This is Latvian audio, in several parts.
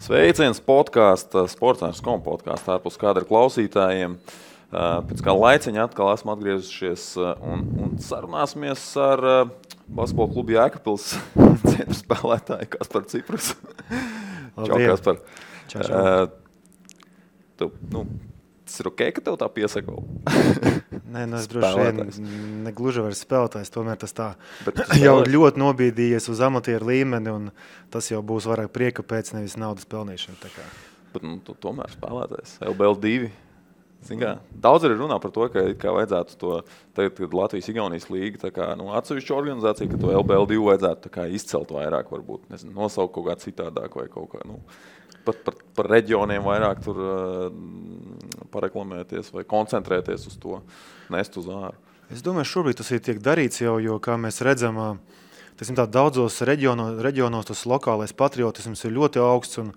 Sveiciens podkāstā, Sports.com podkāstā ārpus kadra klausītājiem. Pēc kā laiciņa atkal esmu atgriezušies un sarunāsimies ar basketbola klubu Jēkabpils centra spēlētāju Kasparu Ciprus. Čau, Kaspar. Čau. Tas ir ok, ka tev tā piesaka? Nē, es droši vien negluži vairs spēlētājs, tomēr tas tā jau ļoti nobīdījies uz amatieru līmeni, un tas jau būs vairāk prieka pēc, nevis naudas pelnīšana. Bet tu tomēr spēlētājs, LBL2. Daudz arī runā par to, ka vajadzētu to, tagad, kad Latvijas-Igaunijas līga atsevišķu organizāciju, ka to LBL2 vajadzētu izcelt vairāk, varbūt, nosaukt kaut kā citādāk vai kaut kā, pat par reģioniem vairāk tur pareklamēties vai koncentrēties uz to, nest uz āru. Es domāju, šobrīd tas ir tiek darīts jau, jo, kā mēs redzam, daudzos reģionos tas lokālais patriotisms ir ļoti augsts un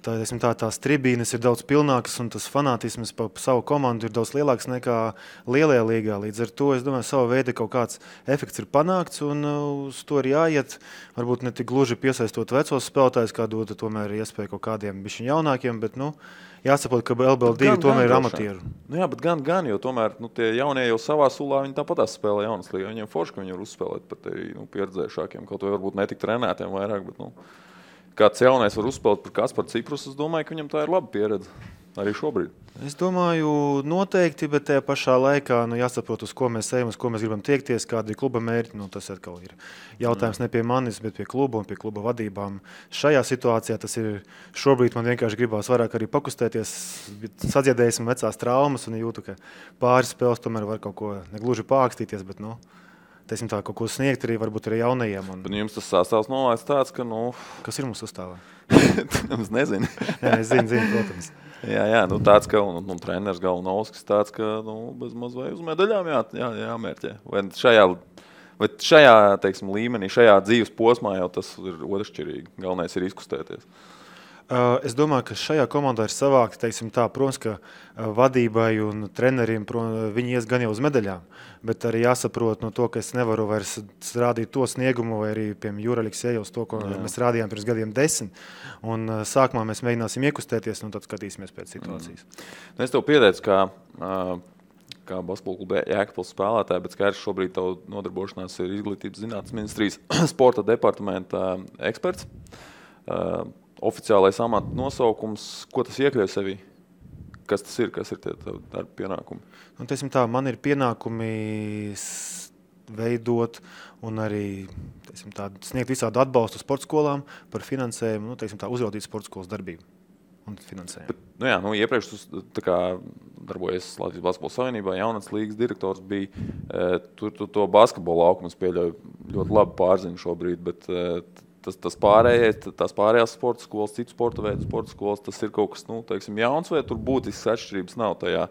tās tribīnes ir daudz pilnākas un tas fanātisms pa savu komandu ir daudz lielāks nekā lielajā līgā. Līdz ar to, es domāju, sava veida kaut kāds efekts ir panākts un uz to ir jāiet. Varbūt ne tik gluži piesaistot vecos spēlētājus, kā dod tomēr iespēju kaut kādiem bišķiņ jaunākiem, bet jāsaprot, ka LBL2 tomēr ir amatieru. Jā, bet gan, jo tomēr tie jaunie jau savā sulā, viņi tāpatās spēlē jaunas līgā. Viņiem forši, ka viņi var uzspēlēt pat pieredzējušākiem, kaut vai varbūt netik trenētiem vairāk, bet kāds jaunais var uzspēlēt par Kasparu Ciprus, es domāju, ka viņam tā ir laba pieredze arī šobrīd. Es domāju, noteikti, bet tajā pašā laikā jāsaprot, uz ko mēs ejam, uz ko mēs gribam tiekties, kādi ir kluba mērķi. Tas atkal ir jautājums ne pie manis, bet pie kluba un pie kluba vadībām. Šajā situācijā tas ir šobrīd man vienkārši gribās vairāk arī pakustēties, sadziedēsim vecās traumas un jūtu, ka pāris spēles tomēr var kaut ko negluži pākstīties, bet teisim tā, kaut ko sniegt arī varbūt arī jaunajiem. Bet jums tas sastāvs nolaists tāds, ka Kas ir mums sastāvā? Es nezinu. Jā, es zinu, protams. Jā, tāds, ka un treneris Galnovskis tāds, ka bez maz vai uz medaļām jāmērķē. Vai šajā, teiksim, līmenī, šajā dzīves posmā jau tas ir otršķirīgi. Galvenais ir izkustēties. Es domāju, ka šajā komandā ir savākti, teiksim tā, protams, ka vadībai un treneriem viņi ies gan jau uz medaļām, bet arī jāsaprot to, ka es nevaru vairs rādīt to sniegumu vai arī, piemēram, Juraliks ejos to, ko mēs rādījām pirms gadiem 10. Un sākumā mēs mēģināsim iekustēties un tad skatīsimies pēc situācijas. Es tev pieteicu, kā basketbola kluba Jēkabpils spēlētāji, bet skaidrs šobrīd tavu nodarbošanās ir Izglītības zinātnes ministrijas sporta departamenta eksperts. Oficiālais amata nosaukums, ko tas iekļauj sevī? Kas tas ir? Kas ir tie darba pienākumi? Teisim tā, man ir pienākumi veidot un arī sniegt visādu atbalstu sporta skolām par finansējumu, uzraudīt sporta skolas darbību un finansējumu. Bet, iepriekš tu darbojies Latvijas basketbola savienībā, jaunatnes līgas direktors bija. Tur to basketbola laukumus pieļauj ļoti labi pārzinu šobrīd, bet tās pārējās sporta skolas, citu sporta veidu sporta skolas, tas ir kaut kas, jauns, vai tur būtisks atšķirības nav tajā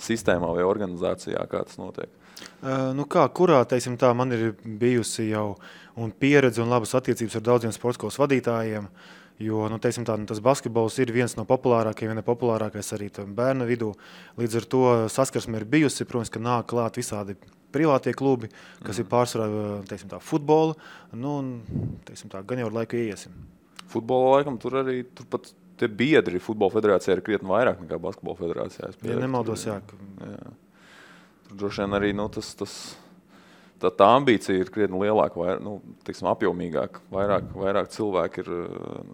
sistēmā vai organizācijā, kā tas notiek? Kurā, man ir bijusi jau un pieredze un labas attiecības ar daudziem sporta skolas vadītājiem, jo, tas basketbols ir viens no populārākajiem, ja ne populārākais arī bērnu vidū. Līdz ar to saskarsme ir bijusi, protams, ka nāk klāt visādi privātie klubi, kas ir pārsvarā, futbola, gan jau ar laiku iesim. Futbola laikam tur pat tie biedri futbola federācijā ir krietni vairāk nekā basketbola federācijā. Ja nemaldos, jā. Tur droši vien arī, tā ambīcija ir krietni lielāka, apjomīgāka. Vairāk cilvēki ir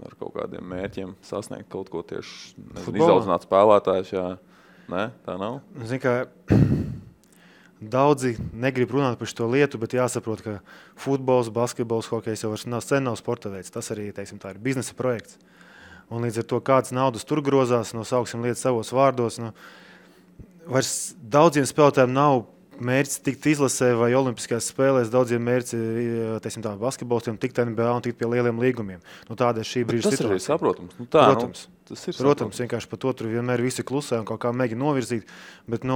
ar kaut kādiem mērķiem sasniegt kaut ko tieši izaudzināt spēlētājus, jā. Nē, tā nav? Zini, ka daudzi negrib runāt par šo lietu, bet jāsaprot, ka futbols, basketbols, hokejs jau sen nav sporta veids. Tas arī, tā ir biznesa projekts. Un līdz ar to kāds naudas tur grozās, sauksim lietas savos vārdos. Vairs daudziem spēlētājiem nav mērķis tikt izlasē vai olimpiskajās spēlēs. Daudziem mērķis, basketbolistiem tikt NBA un tikt pie lieliem līgumiem. Tāda ir šī brīža situācija. Tas ir arī saprotams. Protams, vienkārši par to tur vienmēr visi klusē un kaut kā mēģina novirzīt. Bet,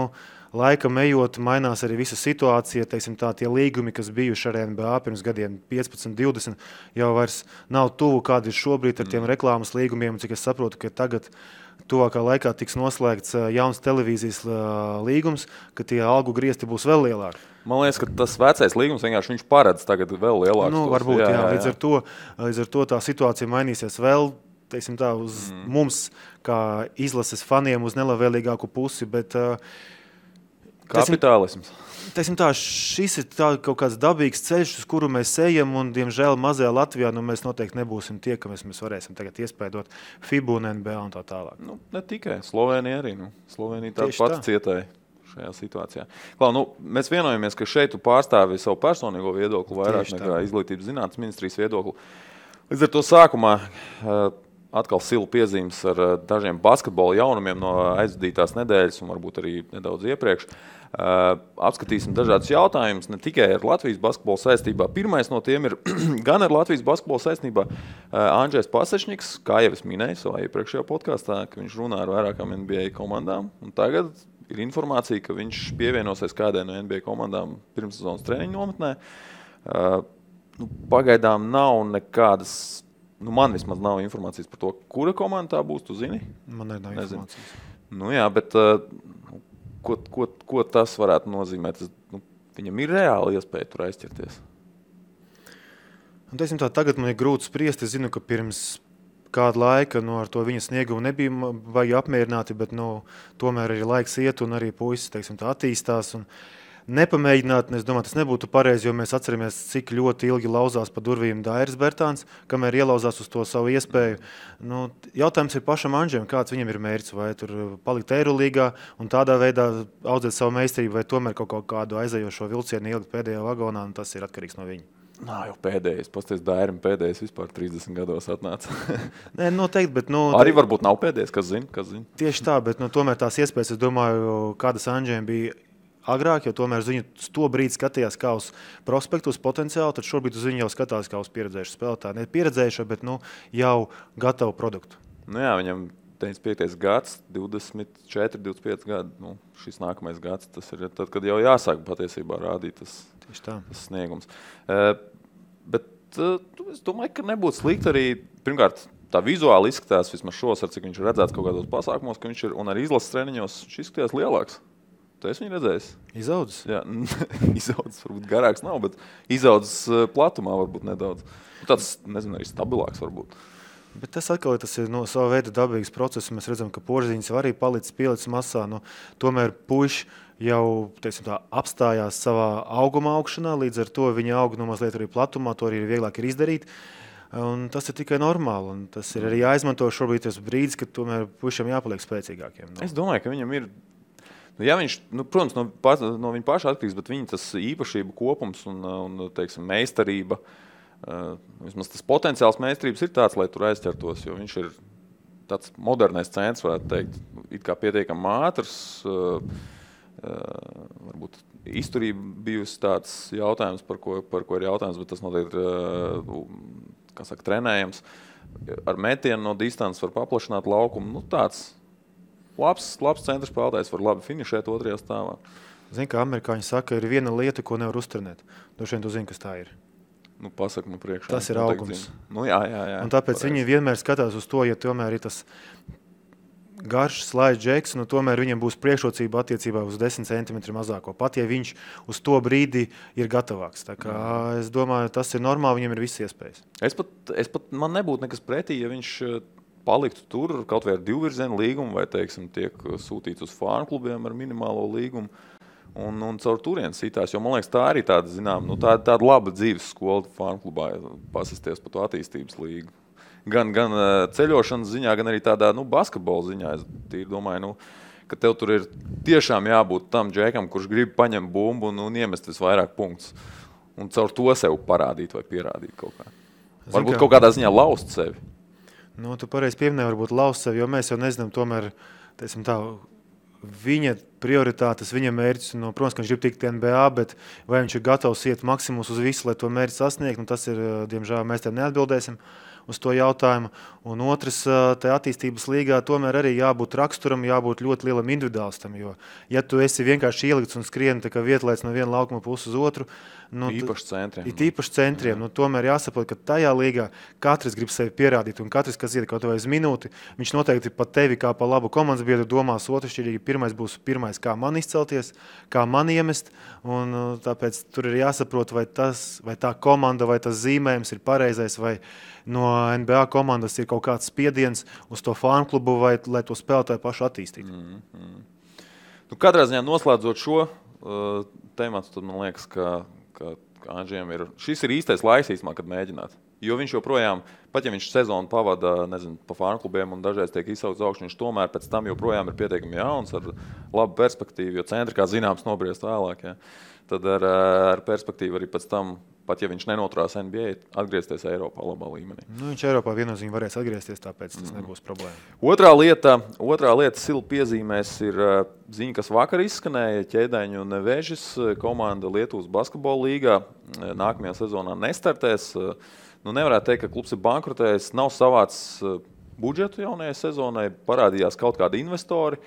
laikam ejot, mainās arī visa situācija. Tie līgumi, kas bijuši ar NBA pirms gadiem 15, 20, jau vairs nav tuvu, kādi ir šobrīd ar tiem reklāmas līgumiem. Cik es saprotu, ka tagad tuvākā laikā tiks noslēgts jauns televīzijas līgums, ka tie algu griezti būs vēl lielāki. Man liekas, ka tas vecais līgums vienkārši viņš paredz tagad vēl lielāks. Varbūt, jā. Līdz ar to tā situācija mainīsies vēl teiksim tā, uz mums, kā izlases faniem, uz nelabvēlīgāku pusi, bet kapitālisms. Teiksim tā, šis ir tā kaut kāds dabīgs ceļš, uz kuru mēs ejam, un, diemžēl, mazajā Latvijā mēs noteikti nebūsim tie, ka mēs varēsim tagad iespēdot FIBA un NBA un tā tālāk. Ne tikai. Slovēnija arī. Slovēnija tāda pati cietēja šajā situācijā. Klau, mēs vienojamies, ka šeit tu pārstāvi savu personīgo viedokli vairāk nekā izglītības zinātnes ministrijas viedokli. Līdz ar to sākumā atkal silu piezīmes ar dažiem basketbola jaunumiem no aizvadītās nedēļas un varbūt arī nedaudz iepriekš. Apskatīsim dažādus jautājumus, ne tikai ar Latvijas basketbola saistībā. Pirmais no tiem ir gan ar Latvijas basketbola saistībā Andžejs Pasečņiks, kā jau es minēju savā iepriekšējā podkastā, ka viņš runā ar vairākām NBA komandām. Un tagad ir informācija, ka viņš pievienosies kādai no NBA komandām pirmssezonas treniņu nometnē. Pagaidām nav nekādas, man vismaz nav informācijas par to, kura komanda tā būs, tu zini? Man nav informācijas. Jā, bet ko tas varētu nozīmēt? Viņam ir reāli iespēja tur aizķerties. Tagad man ir grūti spriest. Es zinu, ka pirms kāda laika ar to viņa sniegumu nebija vajag apmierināti, bet tomēr arī laiks iet un arī puisis attīstās. Un nepamēģināt, es domāju, tas nebūtu pareizi, jo mēs atceramies, cik ļoti ilgi lauzās pa durvīm Dairis Bertāns, kamēr ielauzās uz to savu iespēju. Jautājums ir pašam Andžejam, kāds viņam ir mērķis, vai tur palikt Eirolīgā un tādā veidā audzēt savu meistarību, vai tomēr kaut kādu aizejošo vilcienu ielikt pēdējā vagonā, un tas ir atkarīgs no viņa. Jau pēdējais, pasties Dairim pēdējais vispār 30 gados atnāca. Nē, noteikti, bet arī varbūt nav pēdējais, kas zina. Tieši tā, bet tomēr tās iespējas, es domāju, kādas Andžejam bija agrāk, jo tomēr uz viņu to brīdi skatījās kā uz prospektu, uz potenciālu, tad šobrīd uz viņu jau skatās kā uz pieredzējušu spēlētāju. Ne pieredzējušu, bet jau gatavu produktu. Viņam 95. gads, 24, 25 gadi, šis nākamais gads, tas ir tad, kad jau jāsāk patiesībā rādīt tas sniegums. Bet es domāju, ka nebūtu slikti arī, pirmkārt, tā vizuāli izskatās, vismaz šos, ar cik viņš ir redzēts kaut kādos pasākumos, ka viņš ir, un arī izlases treniņos, šis izskatījās lielāks. Tu esi viņu redzējis? Izaudzis? Jā, izaudzis varbūt garāks nav, bet izaudzis platumā varbūt nedaudz. Tāds, nezinu, arī stabilāks varbūt. Bet tas atkal tas ir sava veida dabīgs process. Mēs redzam, ka Porziņš arī pielicis masā. Tomēr puiši jau apstājās savā auguma augšanā, līdz ar to viņa aug mazliet arī platumā, to arī vieglāk ir izdarīt. Un tas ir tikai normāli. Un tas ir arī jāizmanto šobrīd tas brīdis, kad tomēr puišiem jāpaliek spēcīgākiem. Es domāju, ka viņam ir. Ja viņš, protams, no viņa paša atkarīgs, bet viņa tas īpašība kopums un teiksim, meistarība, vismaz tas potenciāls meistarības ir tāds, lai tur aizķertos, jo viņš ir tāds modernais centrs, varētu teikt, it kā pietiekami ātrs, varbūt izturība bijusi tāds jautājums, par ko ir jautājums, bet tas noteikti ir, trenējams. Ar metienu no distances var paplašināt laukumu, tāds. Labs centra spēlētājs var labi finišēt otrajā stāvā. Zini, kā amerikāņi saka, ir viena lieta, ko nevar uztrenēt. Droši vien tu zini, kas tā ir. Pasaka man priekšā. Tas ir augums. Jā. Un tāpēc viņi vienmēr skatās uz to, ja tomēr ir tas garš slaids džeks, tomēr viņam būs priekšrocība attiecībā uz 10 cm mazāko. Pat, ja viņš uz to brīdi ir gatavāks. Tā kā es domāju, tas ir normāli, viņam ir visas iespējas. Es pat man nebūtu nekas pretī, ja viņš paliktu tur kaut vai ar divvirzienu līgumu vai, teiksim, tiek sūtīts uz fānu klubiem ar minimālo līgumu un caur turien sitās, jo man liekas, tā arī tāda, tāda laba dzīves skola fānu klubā pasisties pa to attīstības līgu. Gan ceļošanas ziņā, gan arī tādā, basketbola ziņā. Es domāju, ka tev tur ir tiešām jābūt tam džekam, kurš grib paņemt bumbu un iemest visvairāk punktus. Un caur to sev parādīt vai pierādīt kaut kā. Varbūt kaut kādā ziņā laust sevi. Tu pareizi pieminēji, varbūt laust sevi, jo mēs jau nezinām tomēr, viņa prioritātes, viņa mērķis, protams, ka viņš grib tikt NBA, bet vai viņš ir gatavs iet maksimumus uz visu, lai to mērķi sasniegt, tas ir, diemžēl, mēs tev neatbildēsim uz to jautājumu. Un otrs, tajā attīstības līgā tomēr arī jābūt raksturam, jābūt ļoti lielam individuālistam, jo, ja tu esi vienkārši ielikts un skrieni tā kā vietlaids no viena laukuma puses uz otru, īpaši centriem. Tomēr jāsaprot, ka tajā līgā katrs grib sevi pierādīt, un katrs, kas iet kaut vai uz minūti, viņš noteikti pat tevi kā pa labu komandas biedru domās otršķirīgi. Pirmais būs kā man izcelties, kā man iemest, un tāpēc tur ir jāsaprot, vai tā komanda, vai tas zīmējums ir pareizais, vai no NBA komandas ir kaut kāds spiediens uz to fanu klubu vai lai to spēlētāju pašu attīstītu. Nu, katrā ziņā noslēdzot šo tematu, tad man liekas, ka Andžiem šis ir īstais laiks īstumā, kad mēģināt. Jo viņš joprojām, pat ja viņš sezonu pavada, pa fanu klubiem un dažreiz tiek izsaukts augšu, viņš tomēr pēc tam joprojām ir pietiekami jauns ar labu perspektīvu, jo centri, kā zināms, nobriest vēlāk. Ja. Tad ar perspektīvu arī pēc tam, pat ja viņš nenoturās NBA, atgriezties Eiropā labā līmenī. Nu, viņš Eiropā viennozīmīgi varēs atgriezties, tāpēc tas nebūs problēma. Otrā lieta Silu piezīmēs ir ziņa, kas vakar izskanēja. Ķēdeņu Nevežis komanda Lietuvas basketbola līgā nākamajā sezonā nestartēs. Nu, nevarētu teikt, ka klubs ir bankrotējis, nav savāds budžetu jaunajai sezonai, parādījās kaut kādi investori,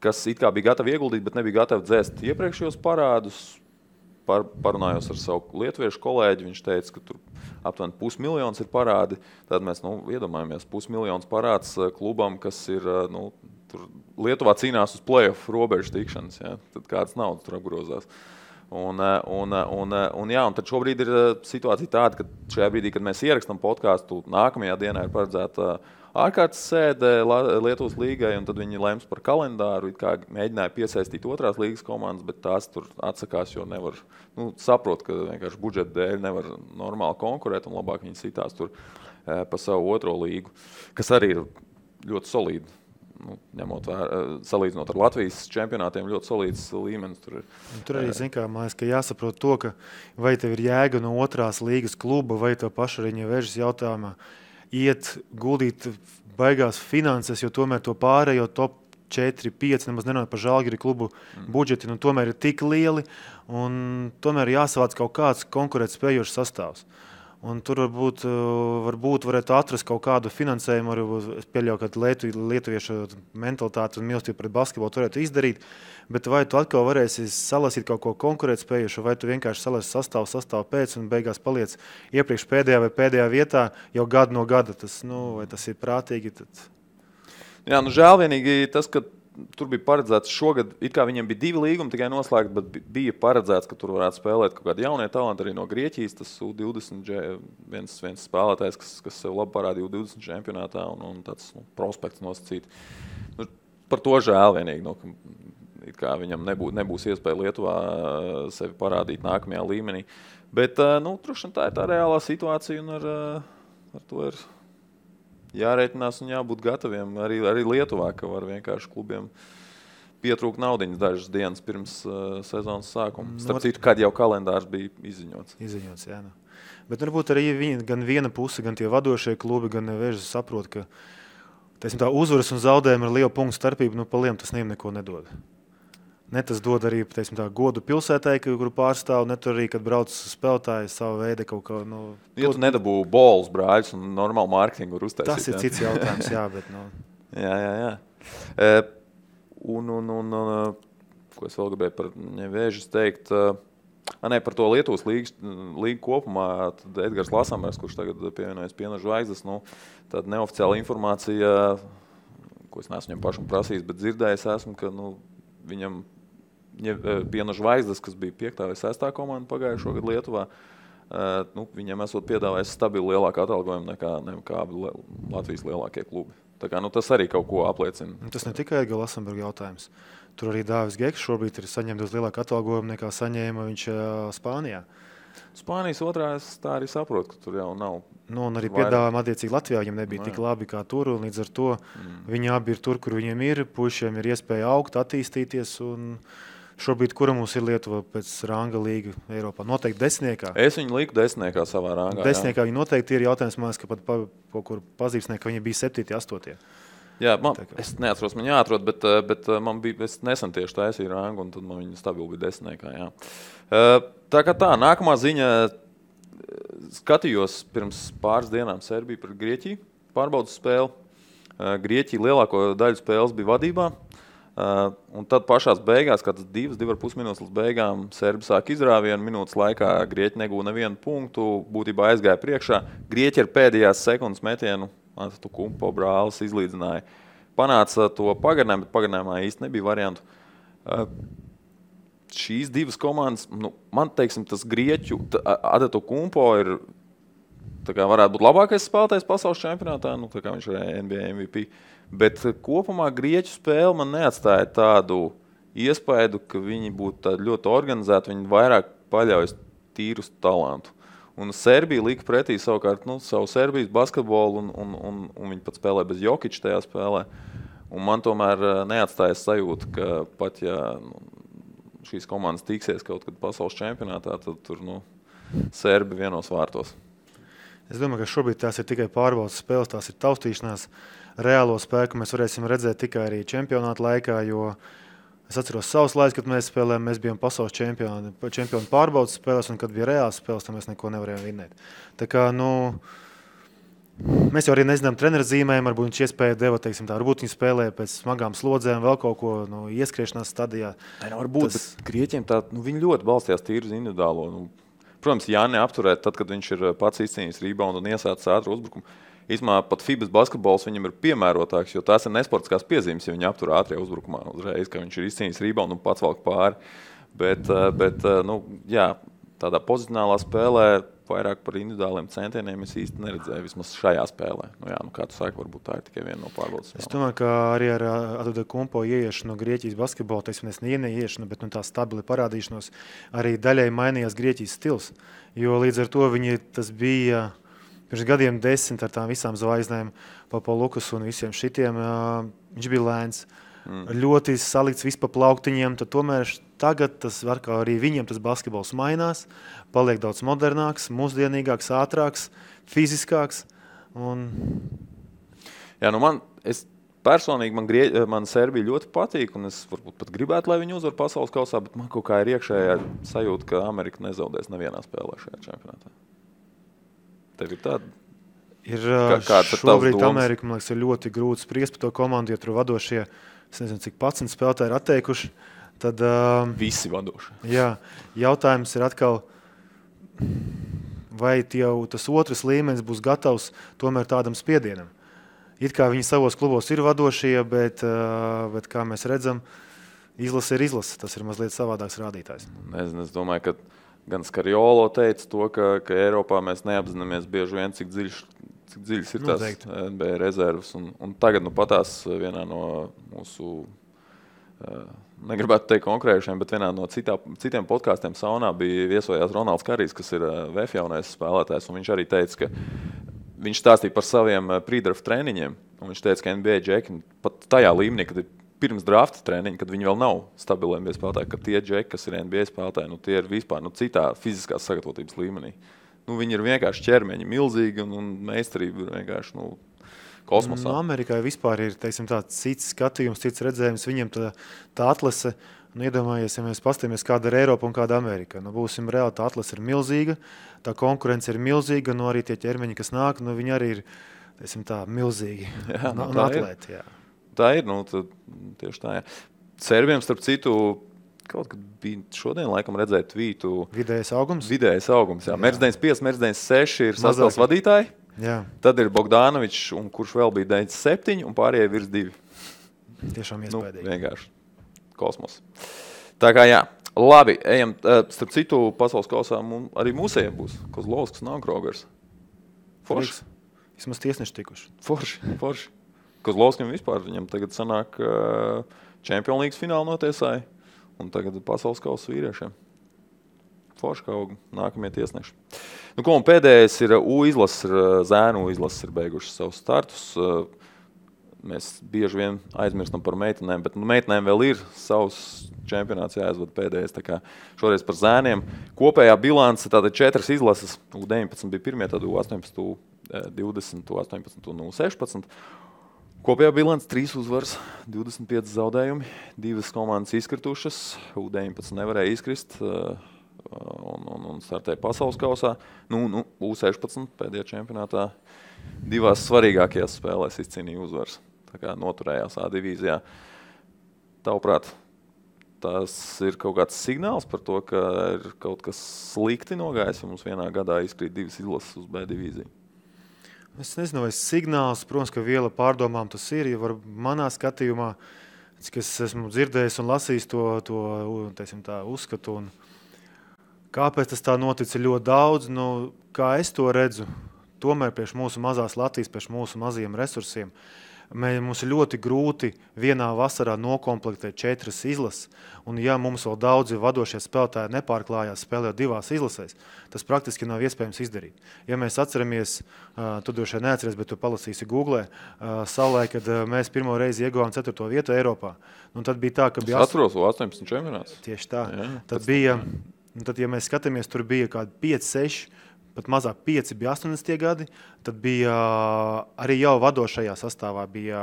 kas it kā bija gatavi ieguldīt, bet nebija gatavi dzēst iepriekšējos parādus. Parunājos ar savu lietuviešu kolēģi, viņš teica, ka tur aptuveni 500 000 ir parādi. Tad mēs iedomājamies 500 000 parāds klubam, kas ir tur Lietuvā cīnās uz play-off robežu tikšanas. Ja? Tad kādas naudas tur apgrozās. Un tad šobrīd ir situācija tāda, ka šajā brīdī, kad mēs ierakstām podcastu, nākamajā dienā ir paredzēta ārkārtas sēde Lietuvas līgai, un tad viņi lems par kalendāru, kā mēģināja piesaistīt otrās līgas komandas, bet tās tur atsakās, jo nevar, saprot, ka vienkārši budžeta dēļ nevar normāli konkurēt, un labāk viņi sitās tur pa savu otro līgu, kas arī ir ļoti solīdi. Ņemot salīdzinot ar Latvijas čempionātiem, ļoti solīds līmenis tur ir. Tur arī, man liekas, ka jāsaprot to, ka vai tev ir jēga no otrās līgas kluba, vai tev paša arī Nevežas jautājumā iet guldīt baigās finanses, jo tomēr to pārējo top 4, 5, nemaz nerunāt par Žalgiri klubu budžeti, tomēr ir tik lieli, un tomēr jāsavāc kaut kāds konkurētspējošs sastāvs. Un tur varbūt varētu atrast kaut kādu finansējumu, arī es pieļauju, ka lietuviešu mentalitāti un mīlestību pret basketbolu tu varētu izdarīt, bet vai tu atkal varēsi salasīt kaut ko konkurētspējušu, vai tu vienkārši salasi sastāvu pēc un beigās paliec iepriekš pēdējā vai pēdējā vietā jau gadu no gada. Vai tas ir prātīgi? Tad... Jā, žēl vienīgi tas, ka tur bija paredzēts šogad, it kā viņiem bija 2 līgumi tikai noslēgt, bet bija paredzēts, ka tur varētu spēlēt kaut kādi jaunie talanti arī no Grieķijas. Tas U20 viens spēlētājs, kas sev labi parādīja U20 čempionātā un tāds prospekts nosacīt. Par to žēl vienīgi, it kā viņam nebūs iespēja Lietuvā sevi parādīt nākamajā līmenī. Bet, droši tā ir tā reālā situācija un ar to ir jārēķinās un jābūt gataviem arī Lietuvā, ka var vienkārši klubiem pietrūkt naudiņas dažas dienas pirms sezonas sākuma. Starp citu, kad jau kalendārs bija izziņots. Jā. Bet varbūt arī gan viena puse, gan tie vadošie klubi, gan Nevežas saprot, ka tā uzvaras un zaudējumi ar lielu punktu starpību, pa lielu tas neko nedod. Ne tas dod arī godu pilsētai, kuru pārstāv, ne tur arī, kad brauc spēlētāji savu veidu kaut kā. Ja tu nedabū bols, brāļus un normālu mārketingu var uztaisīt. Tas ir cits jautājums, jā, bet. Jā. Ko es vēl gribēju par Nevežas teikt? Par to Lietuvas līgu kopumā, tad Edgars Lasamers, kurš tagad pievienojas Piena Zvaigznes, tāda neoficiāla informācija, ko es neesmu viņam pašam prasījis, bet dzirdējis esmu, ka viņam Piena Zvaigznes, kas bija 5. vai 6. komanda pagājušo gadu Lietuvā, viņam esot piedāvājis stabilu lielāku atalgojumu nekā Latvijas lielākie klubi. Tā kā, tas arī kaut ko apliecina. Tas ne tikai Edgara Lasamberga jautājums. Tur arī Dāvis Geks šobrīd ir saņemts lielāku atalgojumu nekā saņēma viņš Spānijā. Spānijas otrā es tā arī saprotu, ka tur jau nav. Un arī piedāvājumi attiecīgi Latvijā viņam nebija tik labi kā tur, un līdz ar to viņi abi ir tur, kur viņiem ir, puišiem ir iespēja augt, attīstīties, un šobrīd, kura mums ir Lietuva pēc ranga līga Eiropā? Noteikti 10. Es viņu liku 10. savā rangā. 10. viņi noteikti ir jautājums, man liekas, ka pat kur pazīstnieki, ka viņi bija 7. 8. Jā, es neatceros, man jāatrod, bet man bija, es nesen tieši taisīju rangu, un tad man viņa stabili bija 10. Jā. Tā kā tā, nākamā ziņa, skatījos pirms pāris dienām Serbiju pret Grieķiju, pārbaudas spēli. Grieķija lielāko daļu spēles bija vadībā, un tad pašās beigās, kāds 2,5 minūtes līdz beigām, Serbi sāk izrāvienu, minūtes laikā Grieķi negūja nevienu punktu, būtībā aizgāja priekšā. Grieķi ar pēdējās sekundes metienu, tu kumpo brālis izlīdzināja. Panāca to pagarinājumu, bet pagarinājumā īsti nebija variantu. Šīs divas komandas, man teiksim, tas Grieķu, Adeto Kumpo ir tā kā varētu būt labākais spēlētājs pasaules čempionātā, nu, tā kā viņš ir NBA MVP. Bet kopumā grieķu spēle man neatstāja tādu iespēju, ka viņi būtu ļoti organizēti, viņi vairāk paļaujas tīru uz talantu. Un Serbija lika pretī savukārt savu Serbijas basketbolu, un viņi pat spēlē bez Jokića tajā spēlē. Un man tomēr neatstājas sajūta, ka pat ja šīs komandas tiksies kaut kad pasaules čempionātā, tad tur Serbi vienos vārtos. Es domāju, ka šobrīd tās ir tikai pārbaudas spēles, tās ir taustīšanās. Reālo spēku mēs varēsim redzēt tikai arī čempionāta laikā, jo es atceros savus laikus, kad mēs spēlējām, mēs bijām pasaules čempioni pārbaudas spēles, un kad bija reāls spēles, tad mēs neko nevarējām vinnēt. Tā kā, mēs jau arī nezinām treneru zīmēm, varbūt viņš iespēja deva, teiksim tā, varbūt viņi spēlēja pēc smagām slodzēm, vēl kaut ko ieskriešanās stadijā. Varbūt, bet Grieķiem viņi ļoti balstījās tīri uz individuālo. Protams, Jāni apturēt, tad, kad viņš ir pats izcīnījis reboundu un iesācis ātru uzbrukumu. Īstumā pat FIBAs basketbols viņam ir piemērotāks, jo tās ir nesportiskās piezīmes, ja viņi aptur ātrijā uzbrukumā uzreiz, ka viņš ir izcīnījis reboundu un pats valk pāri. Bet tādā pozicionālā spēlē vairāk par individuāliem centieniem es īsti neredzēju, vismaz šajā spēlē. Kā tu saki, varbūt tā ir tikai viena no pārbaudas spēlēm. Es domāju, ka arī ar Antetokounmpo ieiešanu no Grieķijas basketbola, teiksim, neieiešanu, bet tā stabili parādīšanos, arī daļai mainījās Grieķijas stils, jo līdz ar to tas bija pirms gadiem 10 ar tām visām zvaigznēm, Papalukas un visiem šitiem, viņš bija lēns. Ļoti salikts viss pa plauktiņiem, tad tomēr tagad tas var, kā arī viņiem tas basketbols mainās, paliek daudz modernāks, mūsdienīgāks, ātrāks, fiziskāks. Jā, personīgi man Serbija ļoti patīk, un es varbūt pat gribētu, lai viņi uzvar pasaules kausā, bet man kaut kā ir iekšējā sajūta, ka Amerika nezaudēs nevienā spēlē šajā čempionātā. Tev ir tāda? Šobrīd Amerika, man liekas, ir ļoti grūti spriest par to komandu, jo tur vadošie, es nezinu, cik 11 spēlētāji ir atteikuši. Tad, visi vadoši. Jā, jautājums ir atkal, vai jau tas otrs līmenis būs gatavs tomēr tādam spiedienam. It kā viņi savos klubos ir vadošie, bet kā mēs redzam, izlase ir izlase. Tas ir mazliet savādāks rādītājs. Nezinu, es domāju, ka gan Skariolo teica to, ka Eiropā mēs neapzināmies bieži vien, cik dziļas ir tās NBA rezervas. Un tagad patās vienā no mūsu, negribētu teikt konkrējušiem, bet vienā no citiem podkāstiem saunā bija viesojās Ronalds Karijs, kas ir VF jaunais spēlētājs. Un viņš arī teica, ka viņš stāstīja par saviem pre-draft treniņiem. Un viņš teica, ka NBA džeki pat tajā līmenī, kad ir pirms drafta treniņa, kad viņi vēl nav stabili NBA spēlētāji, ka tie džeki, kas ir NBA spēlētāji, tie ir vispār citā fiziskās sagatavotības līmenī. Viņi ir vienkārši ķermeņi milzīgi un meistarība ir vienkārši kosmosā. Amerikai vispār ir, teiksim, tāds cits skatījums, cits redzējums. Viņiem tā atlase, iedomājies, ja mēs paskatāmies, kāda ir Eiropa un kāda Amerika. Būsim reāli, tā atlase ir milzīga, tā konkurence ir milzīga, arī tie ķermeņi, kas nāk, viņi arī ir, teiksim, tā milzīgi. Jā, un atlēti, jā. Tā ir, tieši tā, jā. Serbiem, starp citu, kaut kad bija šodien, laikam, redzēt tvītu. Vidējais augums? Vidējais augums, jā. Mērs 95, Mērs 96 ir sastāvs vadītāji. Jā. Tad ir Bogdanovičs, un kurš vēl bija 97, un pārējie virs 2. Tiešām iespējīgi. Vienkārši kosmos. Tā kā jā. Labi, ejam. Starp citu, pasaules kausā arī mūsējiem būs Kozlovskis, Krogers. Forši. Vismaz tiesneši tikuši. Forši. Kozlovskim vispār viņam tagad sanāk Champions League finālu notiesāja, un tagad pasaules kausa vīriešiem. Forši kaut nākamie tiesneši. Un pēdējais ir U-izlases, zēnu U-izlases ir beigušas savus startus. Mēs bieži vien aizmirstam par meitenēm, bet meitenēm vēl ir savs čempionāts jāizvada pēdējais. Tā kā šoreiz par zēniem. Kopējā bilance tātad 4 izlases. U19 bija pirmie, tad U18, U20, U18 un U16. Kopējā bilance 3 uzvaras, 25 zaudējumi, 2 komandas izkritušas, U19 nevarēja izkrist un startēja pasaules kausā. U16 pēdējā čempionātā 2 svarīgākajās spēlēs izcīnīja uzvaras, tā kā noturējās A divīzijā. Tavuprāt, tas ir kaut kāds signāls par to, ka ir kaut kas slikti nogājis, ja mums vienā gadā izkrīt 2 izlases uz B divīziju. Es nezinu, vai signāls, protams, ka viela pārdomām tas ir, ja manā skatījumā, cik es esmu dzirdējis un lasījis to teiksim tā, uzskatu, un kāpēc tas tā notic ļoti daudz, kā es to redzu, tomēr priekš mūsu mazās Latvijas, priekš mūsu mazajiem resursiem, mums ir ļoti grūti vienā vasarā nokomplektēt 4 izlases, un ja mums vēl daudzi vadošie spēlētāji nepārklājās spēlējot 2 izlasēs, tas praktiski nav iespējams izdarīt. Ja mēs atceramies, tu droši vien neatceries, bet tu palasīsi Googlē, savulaik, kad mēs pirmo reizi ieguvām 4. vietu Eiropā, un tad bija tā, ka bija... Es atceros 18 čempionāts. Tieši tā. Jā, tad bija, tad, ja mēs skatāmies, tur bija kādi 5, 6, pat mazāk 5 bija 80. gadi, tad bija arī jau vadošajā sastāvā bija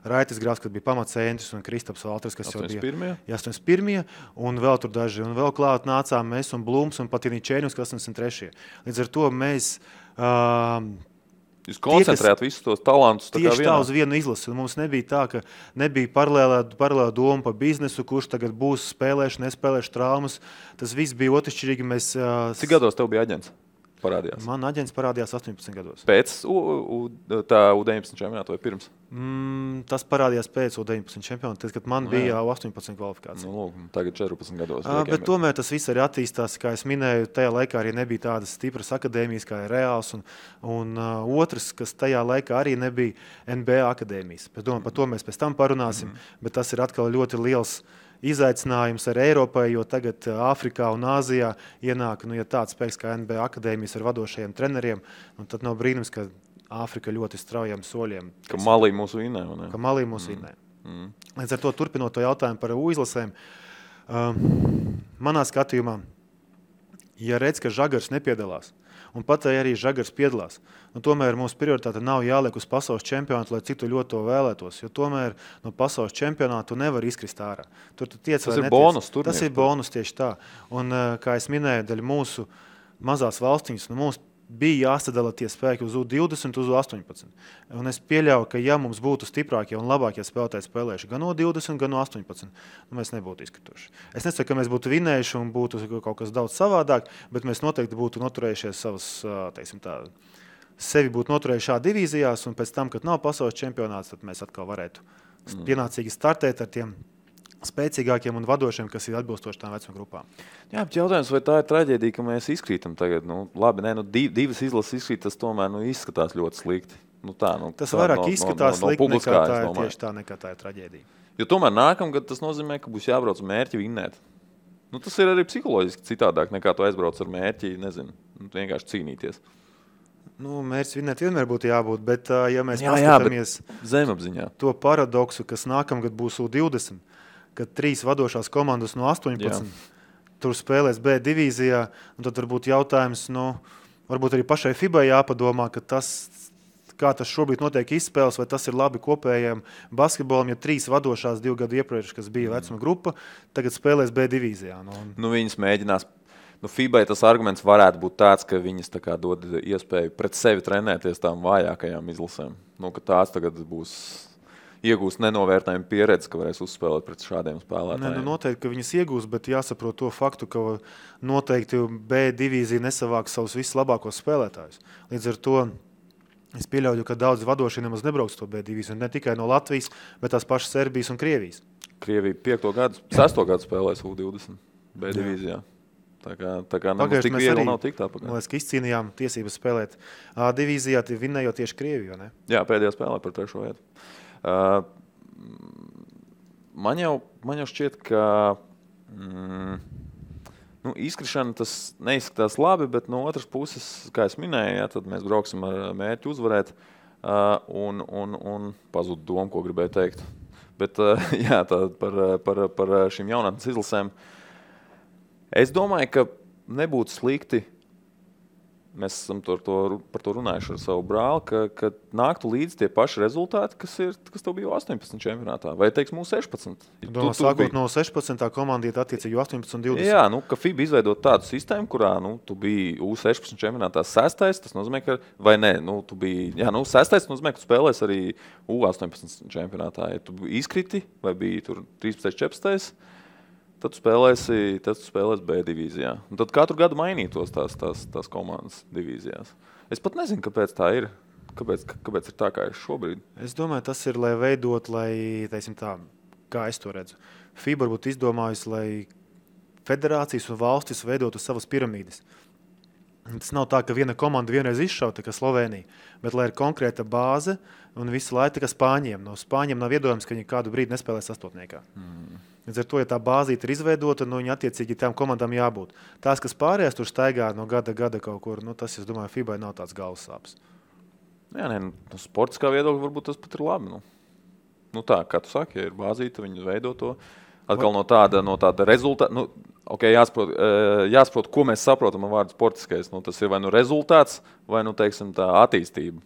Raitis Grāfs, kas bija pamatcentris, un Kristaps Valters, kas 81. jau bija 81. Un vēl tur daži, un vēl klāt nācām mēs un Blūms un pat Čēņus, kas 83. Līdz ar to mēs... Jūs koncentrējāt visus tos talantus tā kā tieši tā uz vienu izlasi. Mums nebija tā, ka nebija paralēlā doma par biznesu, kurš tagad būs nespēlēšu traumas. Tas viss bija otršķirīgi. Cik gados tev bija aģents? Parādījās? Man aģents parādījās 18 gados. Pēc tā U19 čempionāta vai pirms? Tas parādījās pēc U19 čempionāta, kad man bija 18 kvalifikācija. Nu, tagad 14 gados. Bet tomēr tas viss arī attīstās, kā es minēju, tajā laikā arī nebija tādas stipras akadēmijas kā Reāls, un otrs, kas tajā laikā arī nebija NBA akadēmijas. Par to mēs pēc tam parunāsim, bet tas ir atkal ļoti liels izaicinājums ar Eiropai, jo tagad Āfrikā un Āzijā ienāk ja tāds spēks kā NBA akadēmijas ar vadošajiem treneriem, un tad nav brīnums, ka Āfrika ļoti straujiem soļiem. Ka Malī mūsu vinē. Ka Malī mūsu vinē. Līdz ar to turpinot to jautājumu par U-izlasēm, manā skatījumā, ja redz, ka Žagars nepiedalās, un pat arī Žagars piedalās, un tomēr mūsu prioritāte nav jāliek uz pasaules čempionātu, lai cik tu ļoti to vēlētos, jo tomēr no pasaules čempionātu nevar izkrist ārā. Tur tu tiec, tas ir bonus. Tas ir bonus tieši tā. Un, kā es minēju, daļa mūsu mazās valstiņas, mums bija jāsadala tie spēki uz U20, uz U18. Un es pieļauju, ka ja mums būtu stiprākie un labākie spēlētāji spēlējuši gan U20, gan U18, mēs nebūtu izkrituši. Es nesaku, ka mēs būtu vinējuši un būtu kaut kas daudz savādāk, bet mēs noteikti būtu noturējušies savas, teiksim tā, sevi būtu noturējuši šā divīzijās, un pēc tam, kad nav pasaules čempionāts, tad mēs atkal varētu pienācīgi startēt ar tiem spēcīgākiem un vadošiem, kas ir atbilstoši tām vecuma grupām. Jā, bet jautājums, vai tā ir traģēdija, ka mēs izkrītam tagad? Labi, divas izlases izkrīt, tas tomēr izskatās ļoti slikti. Tas vairāk izskatās slikti nekā tā ir traģēdija. Jo tomēr nākamgad tas nozīmē, ka būs jābrauc mērķi vinnēt. Tas ir arī psiholoģiski citādāk, nekā tu aizbrauc ar mērķi, vienkārši cīnīties. Mērķis vinnēt vienmēr būtu jābūt, bet ja mēs paskatāmies zemapziņā to paradoksu, kas nākamgad būs U20, kad 3 vadošās komandas no 18 tur spēlēs B divīzijā, un tad varbūt jautājums, varbūt arī pašai FIBA jāpadomā, ka kā tas šobrīd notiek izspēles, vai tas ir labi kopējiem basketbolam, ja 3 vadošās 2 gadu iepriekš, kas bija vecuma grupa, tagad spēlēs B divīzijā. Viņas mēģinās. FIBA tas arguments varētu būt tāds, ka viņas tā kā dod iespēju pret sevi trenēties tām vājākajām izlasēm. Ka tās tagad būs iegūst nenovērtējumu pieredzi, ka varēs uzspēlēt pret šādiem spēlētājiem. Noteikti, ka viņas iegūst, bet jāsaprot to faktu, ka noteikti B divīzija nesavāks savus vislabākos spēlētājus. Līdz ar to es pieļauju, ka daudz vadošie nemaz nebrauks to B divīziju, ne tikai no Latvijas, bet tās pašas Serbijas un Krievijas. Krievija 5. gadu, 6. gadu spēlēs U20 B divīzijā. Tā kā nemaz tik viegli nav tik tā pagājā. Man liekas, ka izcīnījām tiesības spēlēt A divīzijā, vinnējot tieši Krieviju, ne? Jā, pēdējā spēlē par 3. vietu. Man jau šķiet, ka izkrišana tas neizskatās labi, bet no otras puses, kā es minēju, tad mēs brauksim ar mērķi uzvarēt un pazūd domu, ko gribēju teikt. Bet jā, par šīm jaunatnes izlasēm. Es domāju, ka nebūtu slikti, mēs esam par to runājuši ar savu brāli, ka nāktu līdz tie paši rezultāti, kas tev bija 18 čempionātā, vai teiks mūsu 16. Sākot no 16. komanda iet attiecīgi 18 un 20. Jā, ka FIBA izveidot tādu sistēmu, kurā tu biji U16 čempionātā 6. Tas nozīmē, ka, vai ne, tu biji, 6. Tas nozīmē, ka tu spēlēs arī U18 čempionātā. Ja tu izkriti, vai biji tur 13. 14. Tad tu spēlēsi B divīzijā. Un tad katru gadu mainītos tās komandas divīzijās. Es pat nezinu, kāpēc tā ir. Kāpēc ir tā, kā ir šobrīd? Es domāju, tas ir, lai veidot, teiksim tā, kā es to redzu. FIBA būtu izdomājusi, lai federācijas un valstis veidotu savas piramīdas. Tas nav tā, ka viena komanda vienreiz izšauta, kā Slovenija, bet lai ir konkrēta bāze un visu laiku kā Spāņiem. No Spāņiem nav iedomājams, ka viņi kādu brīdi nespēlē sastotniekā. Līdz ar to, ja tā bāzīte ir izveidota, viņa attiecīgi tām komandām jābūt. Tās, kas pārējās tur staigā no gada kaut kur, tas, es domāju, FIBA nav tāds galvas sāpes. Jā, no sportiskā viedokļa varbūt tas pat ir labi. Tā, kā tu saki, ja ir bāzīte, viņi veido to. Atkal no tāda rezultāta. Jāsaprot, ko mēs saprotam ar vārdu sportiskais. Tas ir vai rezultāts, vai teiksim, tā attīstība,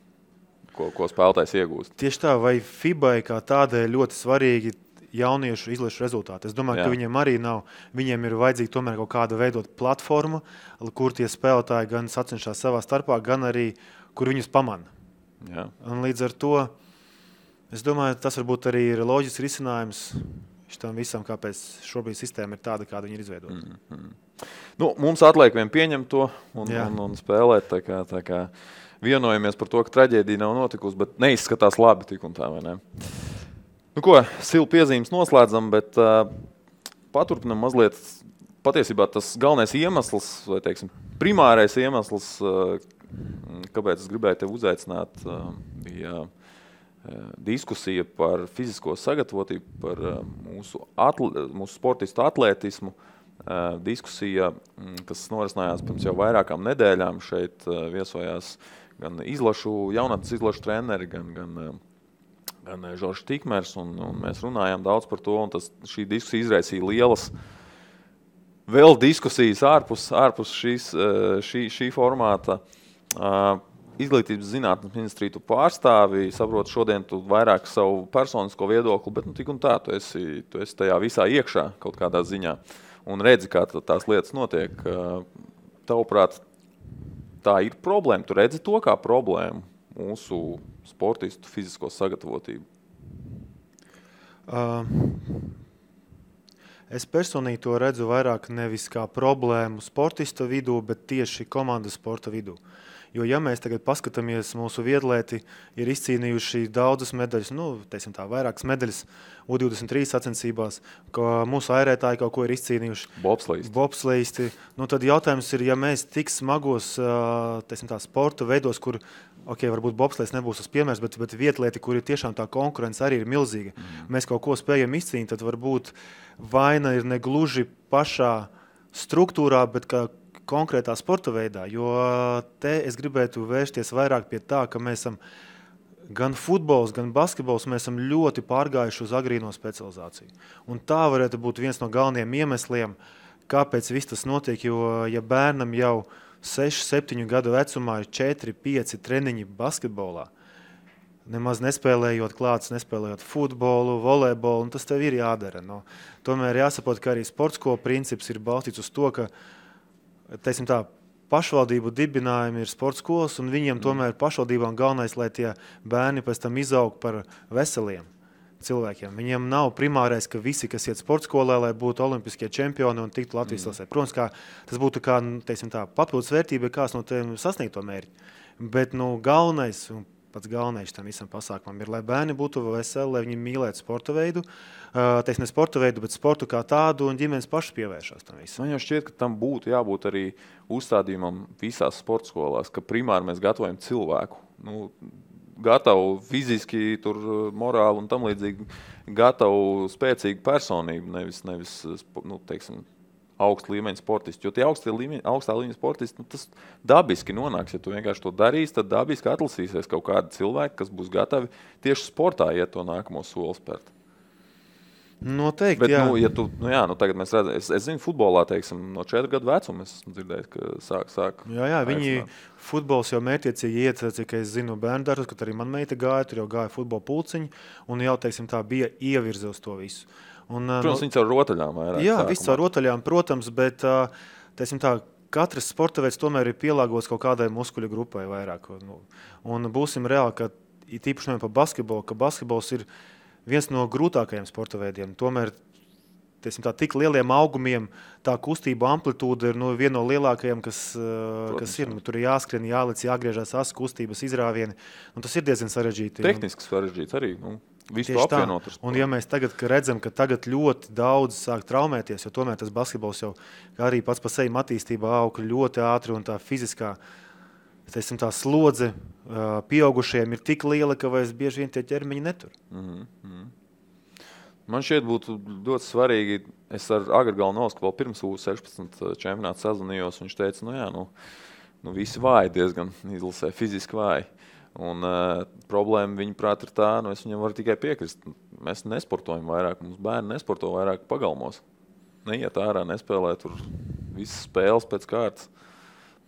ko spēlētājs iegūst. Tieši tā, vai FIBA kā tādai ļoti svarīgi jauniešu izlašu rezultāti. Es domāju, ka viņiem arī nav. Viņiem ir vajadzīga tomēr kaut kāda veidot platforma, kur tie spēlētāji gan sacenšās savā starpā, gan arī, kur viņus pamana. Un līdz ar to, es domāju, tas varbūt arī ir loģisks risinājums šitam visam, kāpēc šobrīd sistēma ir tāda, kāda viņa ir izveidota. Mums atliek vien pieņemt to un spēlēt. Tā kā vienojamies par to, ka traģēdija nav notikusi, bet neizskatās labi tik un tā, vai ne? Silu piezīmes noslēdzam, bet paturpinam mazliet. Patiesībā tas galvenais iemesls, vai teiksim, primārais iemesls, kāpēc es gribēju tevi uzaicināt, bija diskusija par fizisko sagatavotību, par mūsu sportistu atlētismu. Diskusija, kas norisinājās pirms jau vairākām nedēļām. Šeit viesojās gan jaunatnes izlašu treneri, gan Žoržs Tikmers, un mēs runājām daudz par to, un šī diskusija izraisīja lielas vēl diskusijas ārpus šī formāta. Izglītības zinātnes ministriju tu pārstāvi, saprotu, šodien tu vairāk savu personisko viedokli, bet tik un tā, tu esi tajā visā iekšā kaut kādā ziņā un redzi, kā tās lietas notiek. Tavuprāt, tā ir problēma. Tu redzi to kā problēmu mūsu sportistu fizisko sagatavotību? Es personīgi to redzu vairāk nevis kā problēmu sportista vidū, bet tieši komandas sporta vidū. Jo, ja mēs tagad paskatāmies, mūsu viedlēti ir izcīnījuši daudzas medaļas, teiksim tā, vairākas medaļas U23 sacensībās, ka mūsu airētāji kaut ko ir izcīnījuši. Bobsleisti. Tad jautājums ir, ja mēs tik smagos, teiksim tā, sporta veidos, kur, varbūt bobsleists nebūs tas piemērs, bet vietlieti, kur ir tiešām tā konkurence arī ir milzīga, mēs kaut ko spējam izcīnīt, tad varbūt vaina ir negluži pašā struktūrā, bet kā konkrētā sporta veidā, jo te es gribētu vērsties vairāk pie tā, ka mēs esam gan futbols, gan basketbols, mēs esam ļoti pārgājuši uz agrīno specializāciju. Un tā varētu būt viens no galvenajiem iemesliem, kāpēc viss tas notiek, jo ja bērnam jau 6-7 gadu vecumā ir 4-5 treniņi basketbolā, nemaz nespēlējot klāts, nespēlējot futbolu, volejbolu, un tas tev ir jādara. Tomēr jāsaprot, ka arī sportsko princips ir balstīts uz to, ka teiksim tā, pašvaldību dibinājumi ir sporta skolas, un viņiem tomēr pašvaldībām galvenais, lai tie bērni pēc tam izaug par veseliem cilvēkiem. Viņiem nav primārais, ka visi, kas iet sporta skolā, lai būtu olimpiskie čempioni un tiktu Latvijas lasē. Protams, tas būtu kā, teiksim tā, papildus vērtība, kāds no tiem sasniegt to mērķi. Bet, galvenais, un pats galvenais tam visam pasākumam ir, lai bērni būtu veseli, lai viņi mīlētu sporta veidu, ne sporta veidu, bet sportu kā tādu, un ģimenes pašas pievēršās tam visam. Man jau šķiet, ka tam būtu jābūt arī uzstādījumam visās sporta skolās, ka primāri mēs gatavojam cilvēku. Gatavu fiziski, morāli un tam līdzīgi, gatavu spēcīgu personību, nevis teiksim, augsta līmeņa sportisti. Jo tie augstā līmeņa sportisti, tas dabiski nonāks. Ja tu vienkārši to darīsi, tad dabiski atlasīsies kaut kādi cilvēki, kas būs gatavi tieši sportā iet to nākamo soli spērt. Noteikti, bet, jā. Tagad mēs redzam, es zinu, futbolā, teiksim, no 4 gadu vecuma es dzirdēju, ka sāk. Jā, viņi futbols jau mērķiecīgi iet, cik es zinu, bērndārus, kad arī man meita gāja, tur jau gāja futbola pulciņi, un jau, teiksim, tā bija ievirze uz to visu. Protams, viņi caur rotaļām vairāk. Jā, viss caur rotaļām, protams, bet, teiksim tā, katrs sporta veids tomēr ir pielāgots kaut kādai muskuļu grupai vairāk. Un būsim reāli, ka īpaši par basketbolu, ka basketbols ir viens no grūtākajiem sporta veidiem. Tomēr tik lieliem augumiem tā kustība amplitūda ir viena no lielākajām, kas ir. Tur ir jāskrien, jālec, jāgriežās asas kustības izrāvieni. Tas ir diezgan sarežģīti. Tehniski sarežģīts arī. Visu to apvienot. Un ja mēs tagad redzam, ka tagad ļoti daudz sāk traumēties, jo tomēr tas basketbols jau arī pats pa sevi attīstībā aug ļoti ātri un tā fiziskā tā slodze pieaugušajiem ir tik liela, ka vairs bieži vien tie ķermeņi netur. Man šķiet būtu ļoti svarīgi, es ar Agri Galnovsku vēl pirms U16 čempionātu sazvanījos, viņš teica, visi vāji diezgan izlasē, fiziski vāji. Un problēma viņa prāt ir tā, es viņam varu tikai piekrist. Mēs nesportojam vairāk, mums bērni nesporto vairāk pagalmos. Neiet ārā, nespēlē tur visas spēles pēc kārtas.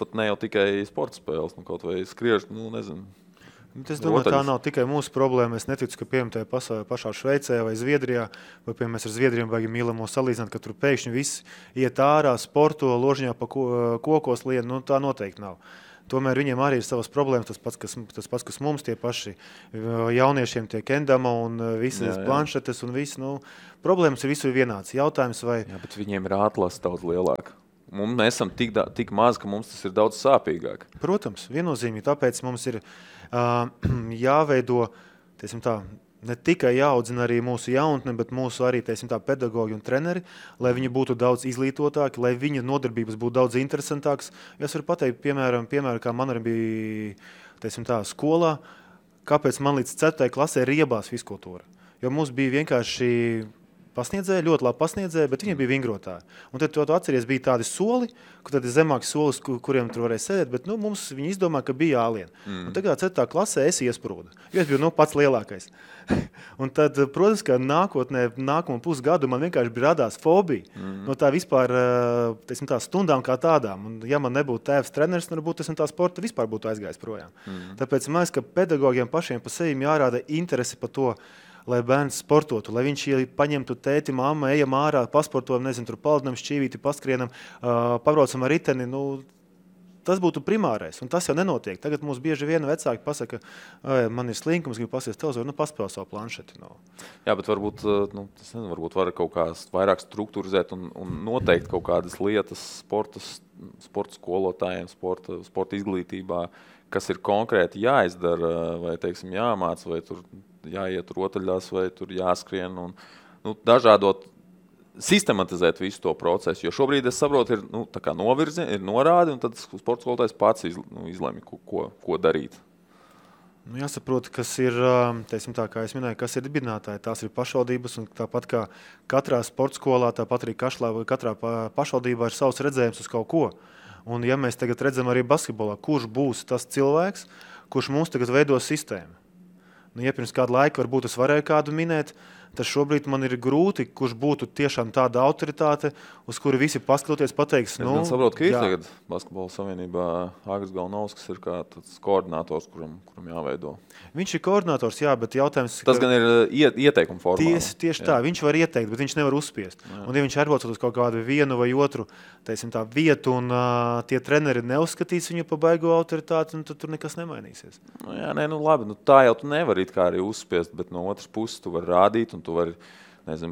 Pat ne jau tikai sporta spēles, kaut vai skriež, nezinu. Es domāju, tā nav tikai mūsu problēma. Es neticu, ka piemēram tajā pašā Šveicē vai Zviedrijā, vai piemēram mēs ar Zviedriem baigi mīlamo salīdzināt, ka tur pēkšņi visi iet ārā, sporto, ložiņā pa kokos lien, tā noteikti nav. Tomēr viņiem arī ir savas problēmas, tas pats, kas mums tie paši jauniešiem tie kendama un visas planšetes un viss, problēmas ir visur vienāds. Jautājums vai... Jā, bet viņiem ir atlase daudz lielāka. Mēs esam tik maz, ka mums tas ir daudz sāpīgāk. Protams, viennozīmīgi, tāpēc mums ir jāveido, ne tikai jāaudzina arī mūsu jaunatne, bet mūsu arī, pedagogi un treneri, lai viņi būtu daudz izglītotāki, lai viņa nodarbības būtu daudz interesantākas. Es varu pateikt, piemēram, kā man arī bija, skolā, kāpēc man līdz 4. klasē riebās fizkultūra. Jo mums bija vienkārši pasniedzēji, ļoti labi pasniedzēji, bet viņi bija vingrotāji. Un tad tu atceries, bija tādi soli, kur tad ir zemāki solis, kuriem tur varēja sēdēt, bet mums viņi izdomā, ka bija jālien. Un tagad 4. klasē es iesprūdu, jo es biju pats lielākais. Un tad, protams, ka nākamo pusgadu man vienkārši bija radās fobija no tā vispār, tā stundām kā tādām. Un ja man nebūtu tēvs treneris, varbūt tā sporta vispār būtu aizgājis projām. Tāpēc man liekas, ka pedagogiem pašiem pa sevi jārāda interesi par to, lai bērns sportotu, lai viņš paņemtu tēti, mamma, ejam ārā, pasportojam, tur paldinam, šķīvīti, paskrienam, pabraucam ar riteni. Tas būtu primārais, un tas jau nenotiek. Tagad mums bieži vien vecāki pasaka, man ir slinkums, gribu pasies televizoru, paspēl savu planšeti. Jā, bet varbūt, varbūt var kaut kā vairāk strukturizēt un noteikt kaut kādas lietas sporta skolotājiem, sporta izglītībā, kas ir konkrēti jāizdara, vai, jāmāc, vai tur jāiet rotaļās, vai tur jāskrien un dažādot, sistematizēt visu to procesu. Jo šobrīd, es saprotu, ir tā kā novirzi, ir norādi, un tad sporta skolotājs pats izlemj, ko darīt. Jāsaprot, kas ir, kā es minēju, kas ir dibinātāji. Tās ir pašvaldības, un tāpat kā katrā sporta skolā, tāpat arī katrā pašvaldībā ir savs redzējums uz kaut ko. Un ja mēs tagad redzam arī basketbolā, kurš būs tas cilvēks, kurš mums tagad veido sistēmu. Ja pirms kādu laiku varbūt es varēju kādu minēt, tad šobrīd man ir grūti, kurš būtu tiešām tāda autoritāte, uz kuru visi paskatoties pateiks. Es gan saprotu, ka ir tagad Basketbola savienībā Agris Galnovskis ir kā tāds koordinators, kuram jāveido. Viņš ir koordinators, jā, bet jautājums... Tas gan ir ieteikuma formā. Tieši tā, viņš var ieteikt, bet viņš nevar uzspiest. Jā. Un ja viņš atbraucot uz kaut kādu vienu vai otru vietu un tie treneri neuzskatīs viņu pa baigo autoritāti, tad tur nekas nemainīsies. Labi, tā jau tu nevari it kā arī uzspiest, bet no otras puses tu vari rādīt un tu vari,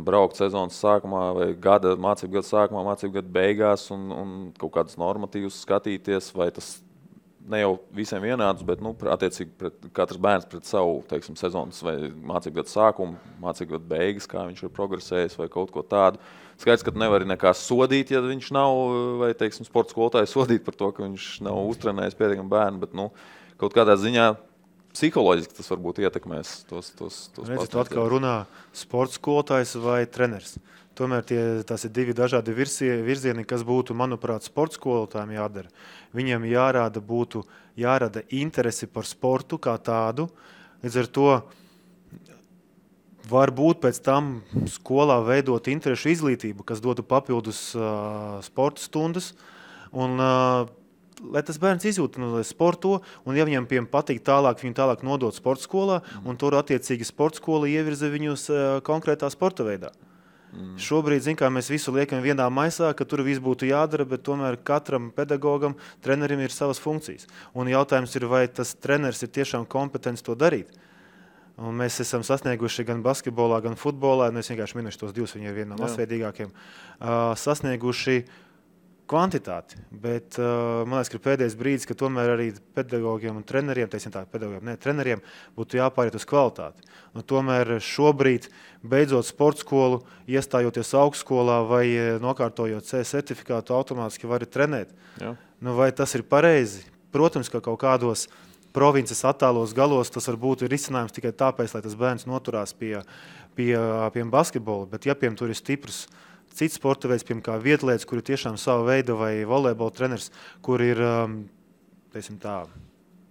braukt sezonas sākumā vai mācību gada sākumā, mācību gada beigās un kaut kādus normatīvus skatīties, vai tas ne jau visiem vienādus, bet, attiecīgi katrs bērns pret savu, sezonas vai mācību gada sākumu, mācību gada beigas, kā viņš ir progresējis vai kaut ko tādu. Skaidrs, ka tu nevari nekā sodīt, ja viņš nav, vai, sporta skolotāju sodīt par to, ka viņš nav uztrenējis pietiekami bērnu, bet, kaut kādā ziņā psiholoģiski tas varbūt ietekmēs tos Redzi, tu atkal runā sporta skolotājs vai treneris. Tomēr tās ir divi dažādi virzieni, kas būtu, manuprāt, sporta skolotājiem jādara. Viņiem jārada interesi par sportu kā tādu. Līdz ar to varbūt pēc tam skolā veidot interešu izglītību, kas dotu papildus sporta stundas. Un lai tas bērns izjūt, lai sporto, un ja viņam patīk tālāk, viņu tālāk nodot sporta skolā, un tur attiecīgi sporta skola ievirza viņus konkrētā sporta veidā. Šobrīd, mēs visu liekam vienā maisā, ka tur viss būtu jādara, bet tomēr katram pedagogam, trenerim ir savas funkcijas. Un jautājums ir, vai tas treneris ir tiešām kompetents to darīt. Un mēs esam sasnieguši gan basketbolā, gan futbolā, es vienkārši minēšu tos divus, viņi ir viena no masveidīgākiem, sasnieguši kvantitāti, bet man liekas, ka pēdējais brīdis, ka tomēr arī pedagogiem un treneriem, treneriem būtu jāpāriet uz kvalitāti. Un tomēr šobrīd, beidzot sporta skolu, iestājoties augstskolā vai nokārtojot C certifikātu, automātiski vari trenēt. Jā. Vai tas ir pareizi? Protams, ka kaut kādos provinces attālos galos tas var būt risinājums tikai tāpēc, lai tas bērns noturās pie basketbola, bet ja tur ir stiprs cits sporta veids, piemēram, kā vietlietas, kur ir tiešām sava veida vai volejbola treneris, kur ir,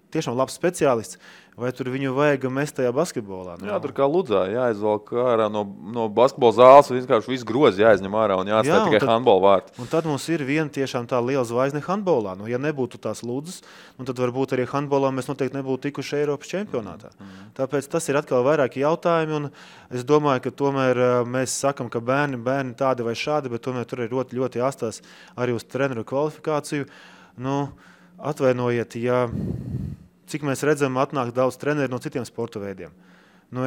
tiešām labs speciālists, vai tur viņu vajag mest tajā basketbolā? Jā, tur kā Ludzā jāizvelk ārā no basketbola zāles, vienkārši visu grozi jāizņem ārā un jāatstāj tikai handbola vārti. Un tad mums ir viena tiešām tā liela zvaigzne handbolā. Ja nebūtu tās Ludzas, tad varbūt arī handbolā mēs noteikti nebūtu tikuši Eiropas čempionātā. Tāpēc tas ir atkal vairāki jautājumi, un es domāju, ka tomēr mēs sakam, ka bērni tādi vai šādi, bet tomēr tur ir ļoti, ļoti jāstās arī uz treneru kvalifikāciju. Atvainojiet, cik mēs redzam, atnāk daudz treneri no citiem sporta veidiem.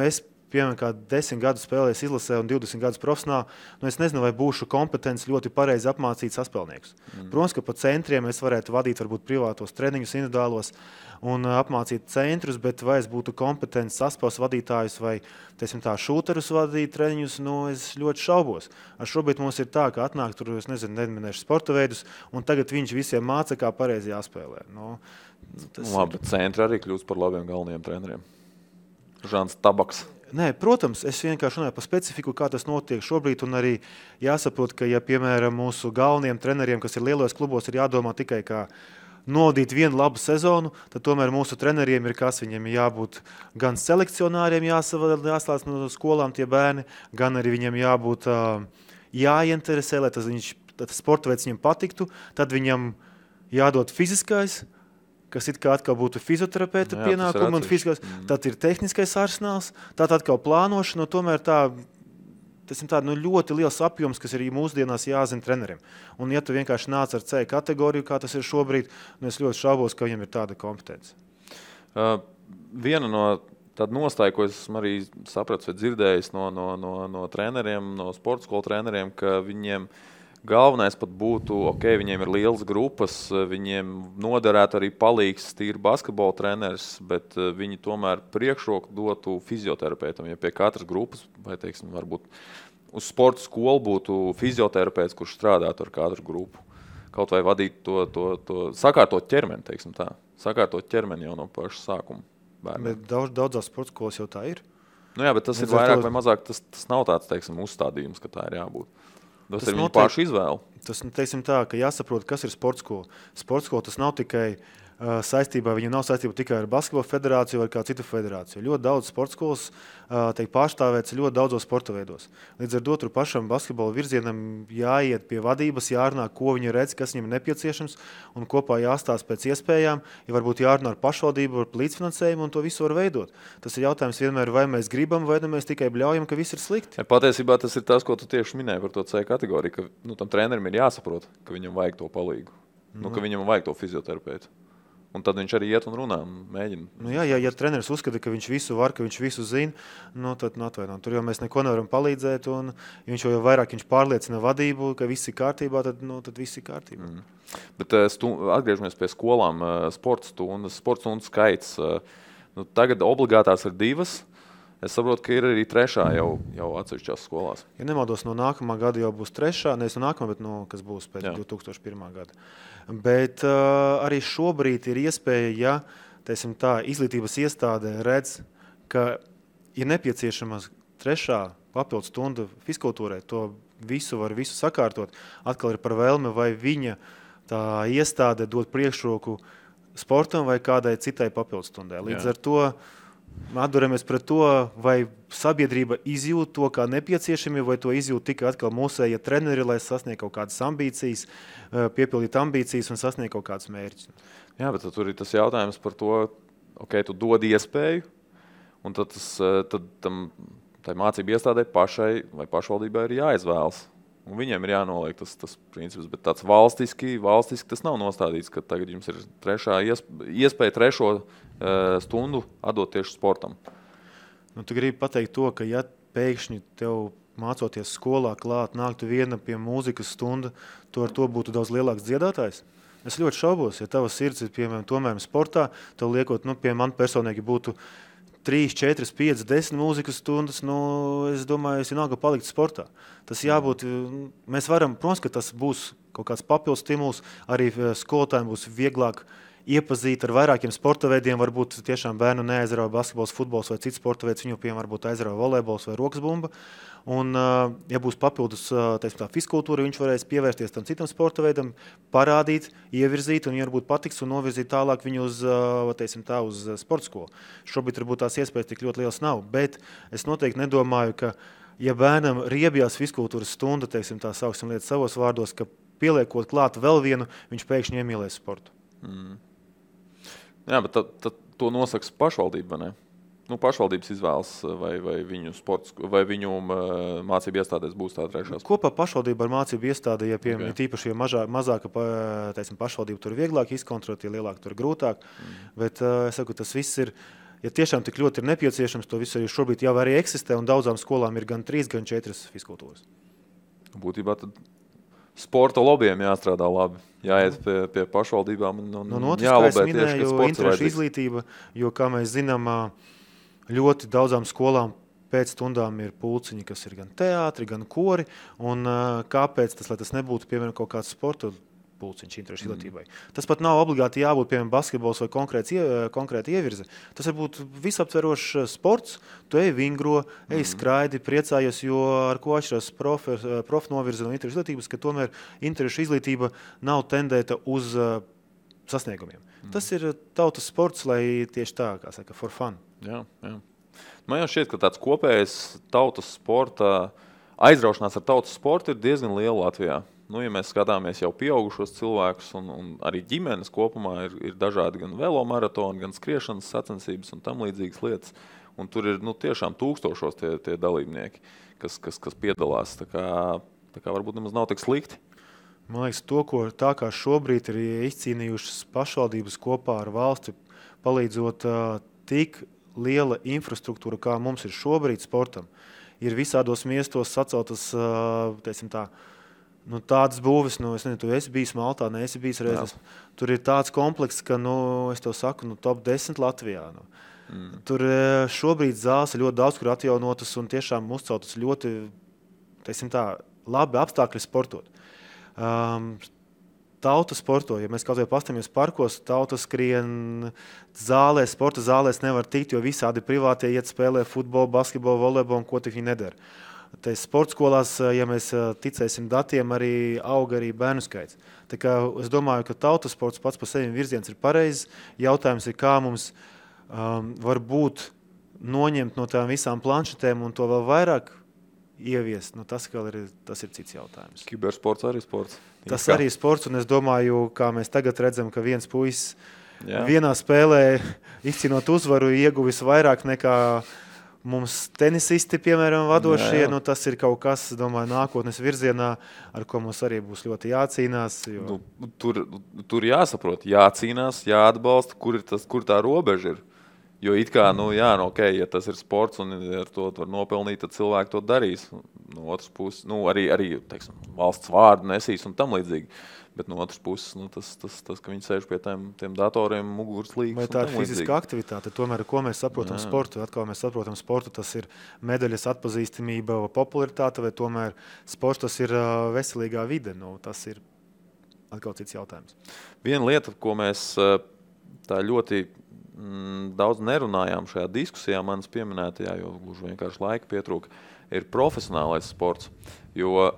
Es, piemēram, kā 10 gadus spēlēju izlasē un 20 gadus profesionāli, es nezinu, vai būšu kompetents ļoti pareizi apmācīt saspēlniekus. Protams, ka pa centriem es varētu vadīt varbūt privātos treniņus individuālos un apmācīt centrus, bet vai es būtu kompetents saspēles vadītājus vai, šūterus vadīt treniņus, es ļoti šaubos. Šobrīd mums ir tā, ka atnāk tur, neminēšu sporta veidus, un tagad viņš visiem māca, kā pareizi jāspēlē. Labi, bet centri arī kļūst par labiem galvenajiem treneriem. Žants Tabaks. Nē, protams, es vienkārši runāju par specifiku, kā tas notiek šobrīd, un arī jāsaprot, ka, ja, piemēram, mūsu galvenajiem treneriem, kas ir lielos klubos, ir jādomā tikai kā novadīt vienu labu sezonu, tad tomēr mūsu treneriem ir kas, viņiem jābūt gan selekcionāriem jāslēdz no skolām tie bērni, gan arī viņiem jābūt jāieinteresē, lai tas sporta veids viņam patiktu, tad viņam jādod fiziskais, kas it kā atkal būtu fizioterapeita pienākumi un fiziskais, tad ir tehniskais arsenāls, tad atkal plānošana, tomēr tas ir ļoti liels apjoms, kas ir mūsdienās jāzina treneriem. Un ja tu vienkārši nāc ar C kategoriju, kā tas ir šobrīd, es ļoti šaubos, ka viņam ir tāda kompetence. Viena no tāda nostāja, ko es esmu arī sapratis vai dzirdējis no treneriem, no sporta skolu treneriem, ka viņiem galvenais pat būtu, viņiem ir lielas grupas, viņiem noderētu arī palīgs tīri basketbola treneris, bet viņi tomēr priekšroku dotu fizioterapeitam. Ja pie katras grupas, vai varbūt uz sporta skolu būtu fizioterapeits, kurš strādātu ar katru grupu. Kaut vai vadīt to sakārtot ķermeni, tā. Sakārtot ķermeni jau no paša sākuma bērniem. Bet daudzās sporta skolas jau tā ir. Jā, bet tas ir vairāk vai mazāk, tas nav tāds, uzstādījums, ka tā ir jābūt. Tas ir viņu pašu izvēle. Tas, ka jāsaprot, kas ir sporta skola. Sporta skola tas nav tikai saistībā, viņa nav saistība tikai ar basketbola federāciju vai kādu citu federāciju. Ļoti daudz sporta skolas tiek pārstāvēts ļoti daudzos sporta veidos. Līdz ar to tur pašam basketbola virzienam jāiet pie vadības, jārunā, ko viņi redz, kas viņam ir nepieciešams, un kopā jāstāsta pēc iespējām, ja varbūt jārunā ar pašvaldību, ar līdzfinansējumu, un to visu var veidot. Tas ir jautājums vienmēr, vai mēs gribam, vai mēs tikai bļaujam, ka viss ir slikti. Ja, patiesībā tas ir tas, ko tu tieši minēji par to C kategoriju, ka tam trenerim ir jāsaprot, ka viņam vajag to palīgu, ka viņam vajag to fizioterapeitu. Un tad viņš arī iet un runā un mēģina. Ja treneris uzskata, ka viņš visu var, ka viņš visu zina, tad atvainojam. Tur jau mēs neko nevaram palīdzēt, un viņš jau vairāk viņš pārliecina vadību, ka viss ir kārtībā, tad viss ir kārtībā. Bet atgriežamies pie skolām, sporta stundu skaits. Tagad obligātās ir 2. Es saprotu, ka ir arī 3. jau atsevišķās skolās. Ja nemaldos, no nākamā gada jau būs 3. Nevis no nākamā, bet kas būs pēc 2001. gada. Bet arī šobrīd ir iespēja, ja izglītības iestāde redz, ka ir nepieciešama 3. papildu stunda fizkultūrai, to visu sakārtot. Atkal ir par vēlmi, vai viņa tā iestāde dod priekšroku sportam vai kādai citai papildu stundai. Līdz ar to atduramies pret to, vai sabiedrība izjūt to kā nepieciešami, vai to izjūt tikai atkal mūsējie treneri, lai sasniegtu kaut kādas ambīcijas, piepildīt ambīcijas un sasniegt kaut kādus mērķus. Jā, bet tur ir tas jautājums par to, tu dod iespēju, un tad tai mācību iestādē pašai vai pašvaldībai ir jāizvēlas. Un viņiem ir jānoliek tas princips, bet tāds valstiski tas nav nostādīts, ka tagad jums ir iespēja 3. stundu atdot tieši sportam. Nu, tu gribi pateikt to, ka ja pēkšņi tev mācoties skolā klāt, nāktu viena pie mūzikas stunda, tu ar to būtu daudz lielāks dziedātājs? Es ļoti šaubos, ja tava sirds ir, piemēram, tomēr sportā, tev liekot, pie man personīgi būtu 3, 4, 5, 10 mūzikas stundas, es domāju, es vienalga palikt sportā. Tas jābūt, mēs varam, protams, ka tas būs kaut kāds papildus stimuls, arī skolotājiem būs vieglāk iepazīt ar vairākiem sporta veidiem, varbūt tiešām bērnu neaizrauja basketbols, futbols vai cits sporta veids, viņu piemēram varbūt aizrauja volejbols vai rokas bumba. Un, ja būs papildus tā fiskultūra, viņš varēs pievērsties tam citam sporta veidam, parādīt, ievirzīt un varbūt patiks un novirzīt tālāk viņu uz sporta skolu. Šobrīd varbūt tās iespējas tik ļoti liels nav, bet es noteikti nedomāju, ka ja bērnam riebjās fiskultūras stunda, tā sauksim lietas savos vārdos, ka pieliekot klāt vēl vienu, viņš pēkšņi iemīlēs sportu. Jā, bet tad to nosaka pašvaldība, vai ne? Pašvaldības izvēlas, vai viņu sports, vai viņu mācību iestādēs būs tā trešā. Kopā pašvaldība ar mācību iestādi, ja tīpaši mazāka pašvaldība, tur vieglāk izkontrolēt, ja lielāk tur grūtāk. Bet es saku, tas viss ir, ja tiešām tik ļoti ir nepieciešams, to visu arī šobrīd jau arī eksistē, un daudzām skolām ir gan 3, gan 4 fiskultūras. Būtībā tad sporta lobbyiem jāstrādā labi, jāiet pie pašvaldībām un jālobē tieši, ka sports interešu izglītība, jo, kā mēs zinām, ļoti daudzām skolām pēc stundām ir pulciņi, kas ir gan teātri, gan kori, un kāpēc tas, lai tas nebūtu, piemēram, kaut kāds sporta pulciņš interešu izglītībai. Tas pat nav obligāti jābūt, piemēram, basketbols vai konkrēti ievirze. Tas var būt visaptverošs sports, tu ej vingro, ej skraidi, priecājies, jo ar ko atšķirās prof novirze no interešu izglītības, ka tomēr interešu izglītība nav tendēta uz sasniegumiem. Tas ir tautas sports, lai tieši tā, kā saka, for fun. Jā. Man jau šķiet, ka tāds kopējs tautas sporta, aizraušanās ar tautas sportu ir diezgan liela Latvijā. Ja mēs skatāmies jau pieaugušos cilvēkus un arī ģimenes kopumā ir dažādi gan velomaratoni, gan skriešanas sacensības un tam līdzīgas lietas. Un tur ir tiešām tūkstošos tie dalībnieki, kas piedalās. Tā kā varbūt nemaz nav tik slikti. Man liekas, tā kā šobrīd ir izcīnījušas pašvaldības kopā ar valsti, palīdzot tik liela infrastruktūra, kā mums ir šobrīd sportam, ir visādos miestos saceltas, tādas būves, es nezinu, tu esi bijis Maltā, neesi bijis reizes. Tur ir tāds komplekss, ka, es tev saku, top 10 Latvijā. Tur šobrīd zāles ir ļoti daudz, kur atjaunotas un tiešām uzceltas ļoti, labi apstākļi sportot. Tauta sporto, ja mēs kaut vai pastamies parkos, tauta skrien zālēs, sporta zālēs nevar tikt, jo visādi privātie iet spēlē futbolu, basketbolu, volejbolu un ko tik viņi nedara. Sporta skolās, ja mēs ticēsim datiem, arī auga arī bērnu skaits. Tā kā es domāju, ka tautas sports pats par sevi virziens ir pareizs. Jautājums ir, kā mums varbūt noņemt no tām visām planšetēm un to vēl vairāk ieviest. Tas ir cits jautājums. Kibersports arī sports. Tas arī ir sports, un es domāju, kā mēs tagad redzam, ka viens puisis vienā spēlē izcīnot uzvaru ieguvis vairāk nekā mums tenisisti, piemēram, vadošie. Tas ir kaut kas, domāju, nākotnes virzienā, ar ko mums arī būs ļoti jācīnās. Jo... Tur jāsaprot, jācīnās, jāatbalsta, kur tā robeža ir. Jo it kā, ja tas ir sports un ar to var nopelnīt, tad cilvēki to darīs. No otras puses, arī teiksim, valsts vārdu nesīs un tam līdzīgi. Bet no otras puses, tas ka viņi sēž pie tiem datoriem, muguras līgas. Vai tā ir fiziska aktivitāte? Tomēr, ko mēs saprotam sportu? Atkal mēs saprotam sportu, tas ir medaļas atpazīstamība, popularitāte, vai tomēr sports tas ir veselīgā vide? Tas ir atkal cits jautājums. Viena lieta, ko mēs tā ļoti daudz nerunājām šajā diskusijā, manas pieminētajā, jo gluži vienkārši laika pietrūka, ir profesionālais sports. Jo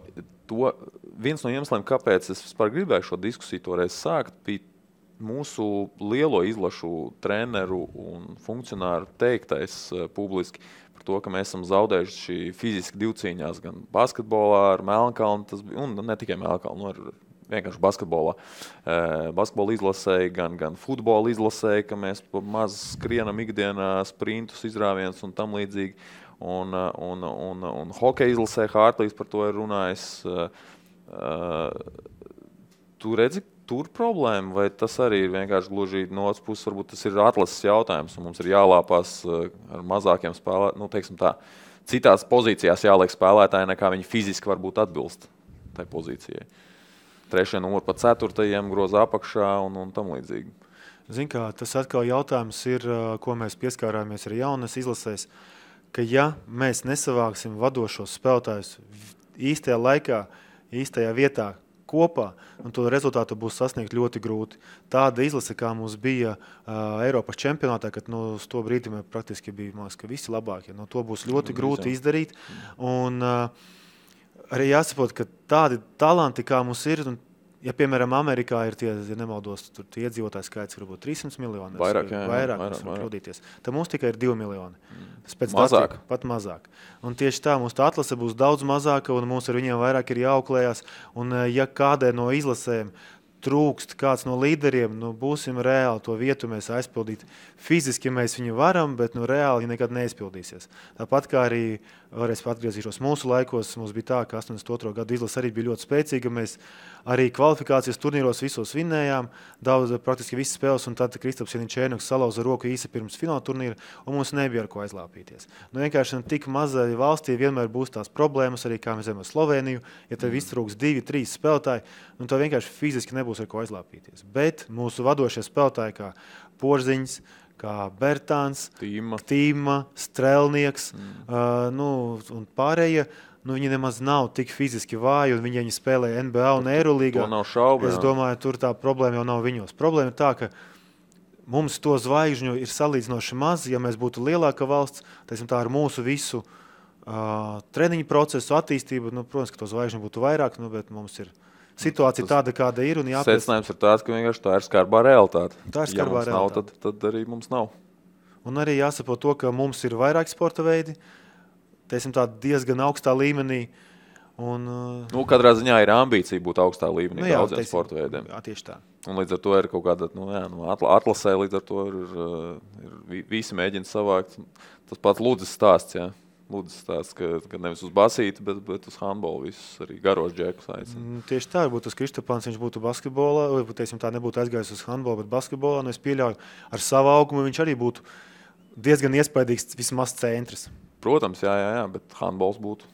viens no iemesliem, kāpēc es vispār gribēju šo diskusiju toreiz sākt, bija mūsu lielo izlašu treneru un funkcionāru teiktais publiski par to, ka mēs esam zaudējuši fiziski divcīņās gan basketbolā ar Melnkalnu, un ne tikai Melnkalnu, ar vienkārši basketbolā. Basketbola izlasēja, gan futbola izlasēja, ka mēs maz skrienam ikdienā sprintus, izrāvienus un tam līdzīgi. Un hokeja izlasēja, Hārtlīs par to ir runājis. Tu redzi tur problēma, vai tas arī ir vienkārši gluži no otras puses, varbūt tas ir atlases jautājums, un mums ir jālāpās ar mazākiem spēlētājiem, nu, teiksim tā, citās pozīcijās jāliek spēlētāji, nekā viņi fiziski varbūt atbilst tai pozīcijai. 3. numuru pa 4. groza apakšā un tam līdzīgi. Zin kā, tas atkal jautājums ir, ko mēs pieskārāmies ar jaunas izlasēs, ka ja mēs nesavāksim vadošos spēlētājus īstajā laikā, īstajā vietā, kopā, un to rezultātu būs sasniegt ļoti grūti. Tāda izlase, kā mums bija Eiropas čempionātā, kad uz to brīdi mēs praktiski bija, man liekas, ka visi labākie. To būs ļoti grūti izdarīt. Un arī jāsaprot, ka tādi talanti, kā mums ir, un, ja, piemēram, Amerikā ir tie, ja nemaldos, tur tie iedzīvotāji skaits varbūt 300 miljoni. Vairāk. Tad mums tikai ir 2 miljoni. Mazāk. Pat mazāk. Un tieši tā, mums tā atlase būs daudz mazāka, un mums ar viņiem vairāk ir jāauklējās. Un ja kādai no izlasēm trūkst kāds no līderiem, būsim reāli to vietu mēs aizpildīt. Fiziski mēs viņu varam, bet reāli nekad neizpildīsies. Tāpat kā arī, varēs atgriezīšos mūsu laikos, mums bija tā, ka 82. gadu izlase arī bija ļoti spēcīga. Mēs arī kvalifikācijas turnīros visos vinnējām, praktiski visas spēles, un tad Kristaps Janičēnoks salauza roku īsi pirms fināla turnīra, un mums nebija ar ko aizlāpīties. Vienkārši tik mazai valstī vienmēr būs tās problēmas, arī kā mēs zinām ar Sloveniju, ja tev iztrūks 2-3 spēlētāji, tad vienkārši fiziski nebūs ar ko aizlāpīties. Bet mūsu vadošie spēlētāji kā Porziņš, kā Bertāns, Tīma, Strelnieks, un pārējie, viņi nemaz nav tik fiziski vāji, un viņi spēlē NBA un Eirolīgā. To nav šaubu. Es domāju, tur tā problēma jau nav viņos. Problēma ir tā, ka mums to zvaigžņu ir salīdzinoši maz, ja mēs būtu lielāka valsts, tā ar mūsu visu treniņu procesu, attīstību, protams, ka to zvaigžņu būtu vairāk, bet mums ir situācija tāda, kāda ir. Secinājums ir tāds, ka vienkārši tā ir skarbā realitāte. Tā ir skarbā realitāte. Nav, tad arī mums nav. Un arī jāsaprot to, ka mums ir vairāk sporta veidi, diezgan augstā līmenī. Katrā ziņā ir ambīcija būt augstā līmenī daudziem sporta veidiem. Jā, tieši tā. Un līdz ar to ir kaut kāda atlasē, līdz ar to ir visi mēģina savākt. Tas pats Ludzes stāsts, jā. Ludzes stāsts, ka nevis uz basīti, bet uz handbolu visus arī garos džekus aicina. Tieši tā, varbūt tas Kristapāns, viņš būtu basketbolā, vai tā nebūtu aizgājis uz handbolu, bet basketbolā, es pieļauju, ar savu augumu viņš arī būtu diezgan iespaidīgs vismaz centrs. Protams, jā, bet handbols būtu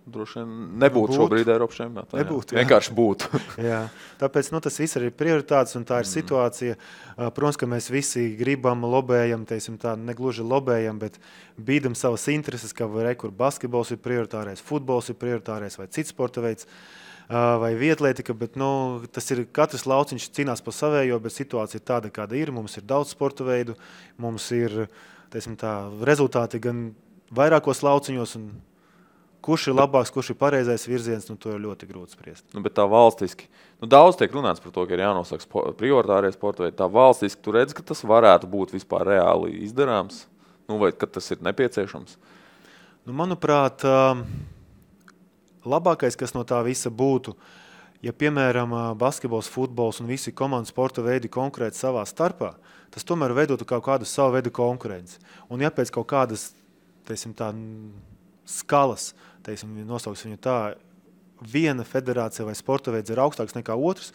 droši vien nebūtu šobrīd Eiropas čempionātā. Nebūtu, vienkārši būtu. Jā. Tāpēc tas viss ir prioritātes un tā ir situācija. Protams, ka mēs visi gribam, lobējam, negluži lobējam, bet bīdam savas intereses, ka kur basketbols ir prioritārais, futbols ir prioritārais vai cits sporta veids vai vietlētika, bet tas ir katrs lauciņš cīnās pa savējo, bet situācija ir tāda, kāda ir. Mums ir daudz sporta veidu, mums ir rezultāti gan vairākos lauciņos, un kurš ir labāks, kurš ir pareizais virziens, to ir ļoti grūti spriest. Bet tā valstiski, daudz tiek runāts par to, ka ir jānosaka prioritārie sporta veidi. Tā valstiski, tu redz, ka tas varētu būt vispār reāli izdarāms, vai ka tas ir nepieciešams? Manuprāt, labākais, kas no tā visa būtu, ja, piemēram, basketbols, futbols un visi komandas sporta veidi konkrēti savā starpā, tas tomēr veidotu kaut kādu savu veidu konkurenci. Un ja pēc kaut kādas, skalas, nosauks viņu tā, viena federācija vai sporta veids ir augstāks nekā otrs,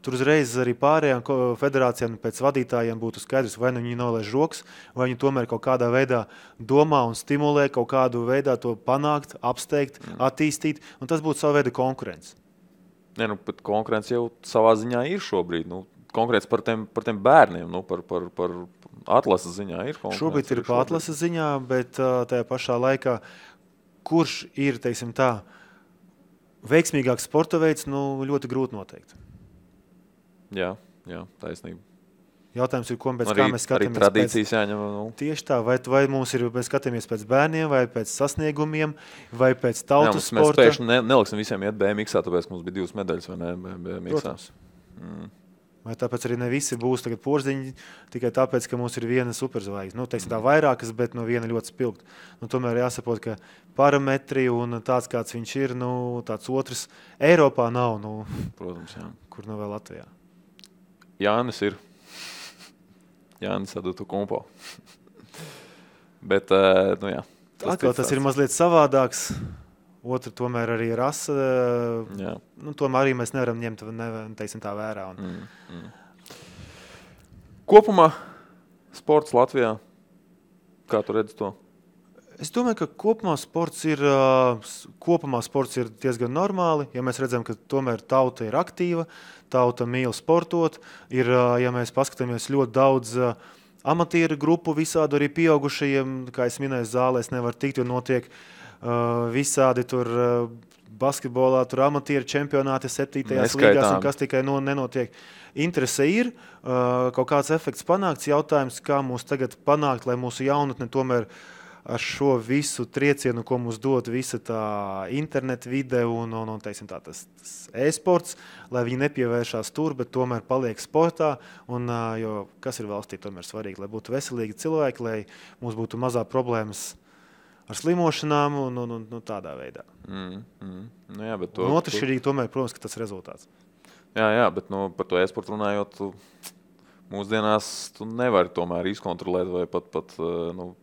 tur uzreiz arī pārējām federācijām pēc vadītājiem būtu skaidrs, vai viņi nolaiž rokas, vai viņi tomēr kaut kādā veidā domā un stimulē kaut kādu veidā to panākt, apsteigt, attīstīt, un tas būtu savu veidu konkurence. Bet konkurence jau savā ziņā ir šobrīd. Konkrēts par tiem bērniem, par atlases ziņā ir konkurence. Šobrīd ir par atlases ziņā, bet tajā pašā laikā, kurš ir, veiksmīgāks sporta veids, ļoti grūti noteikt. Jā, taisnība. Jautājums ir, kā mēs skatāmies. Arī tradīcijas jāņem. Tieši tā, vai mums ir, mēs skatāmies pēc bērniem, vai pēc sasniegumiem, vai pēc tautas sporta. Mēs pēkšņi neliksim visiem iet BMX-ā, tāpēc mums bija 2 medaļas, vai ne, BMX-ā. Vai tāpēc arī ne visi būs tagad porziņi, tikai tāpēc, ka mums ir viena superzvaigzne. Tā vairākas, bet viena ļoti spilgta. Tomēr jāsaprot, ka parametri un tāds, kāds viņš ir, tāds otrs Eiropā nav. Protams, jā. Kur vēl Latvijā. Jānis ir. Jānis Adutu Kumpo. Bet, jā. Tas ir mazliet savādāks. otra tomēr arī rasa. Tomēr arī mēs nevaram ņemt teiksim, tā vērā. Kopumā sports Latvijā, kā tu redzi to? Es domāju, ka kopumā sports ir diezgan normāli, ja mēs redzam, ka tomēr tauta ir aktīva, tauta mīl sportot. Ir, ja mēs paskatāmies ļoti daudz amatieru grupu, visādi arī pieaugušajiem, kā es minēju, zālēs nevar tikt, jo notiek visādi tur basketbolā, tur amatieru čempionāti 7. līgās un kas tikai nenotiek. Interese ir, kaut kāds efekts panākts, jautājums, kā mūs tagad panākt, lai mūsu jaunatne tomēr ar šo visu triecienu, ko mums dod visa tā interneta vide un teiksim tā, tas e-sports, lai viņi nepievēršās tur, bet tomēr paliek sportā. Jo kas ir valstī tomēr svarīgi, lai būtu veselīgi cilvēki, lai mums būtu mazā problēmas ar slimošanām un tādā veidā. Nu jā, bet un otršķirīgi tomēr, protams, ka tas rezultāts. Jā, bet par to e-sportu runājot, mūsdienās tu nevari tomēr izkontrolēt, vai pat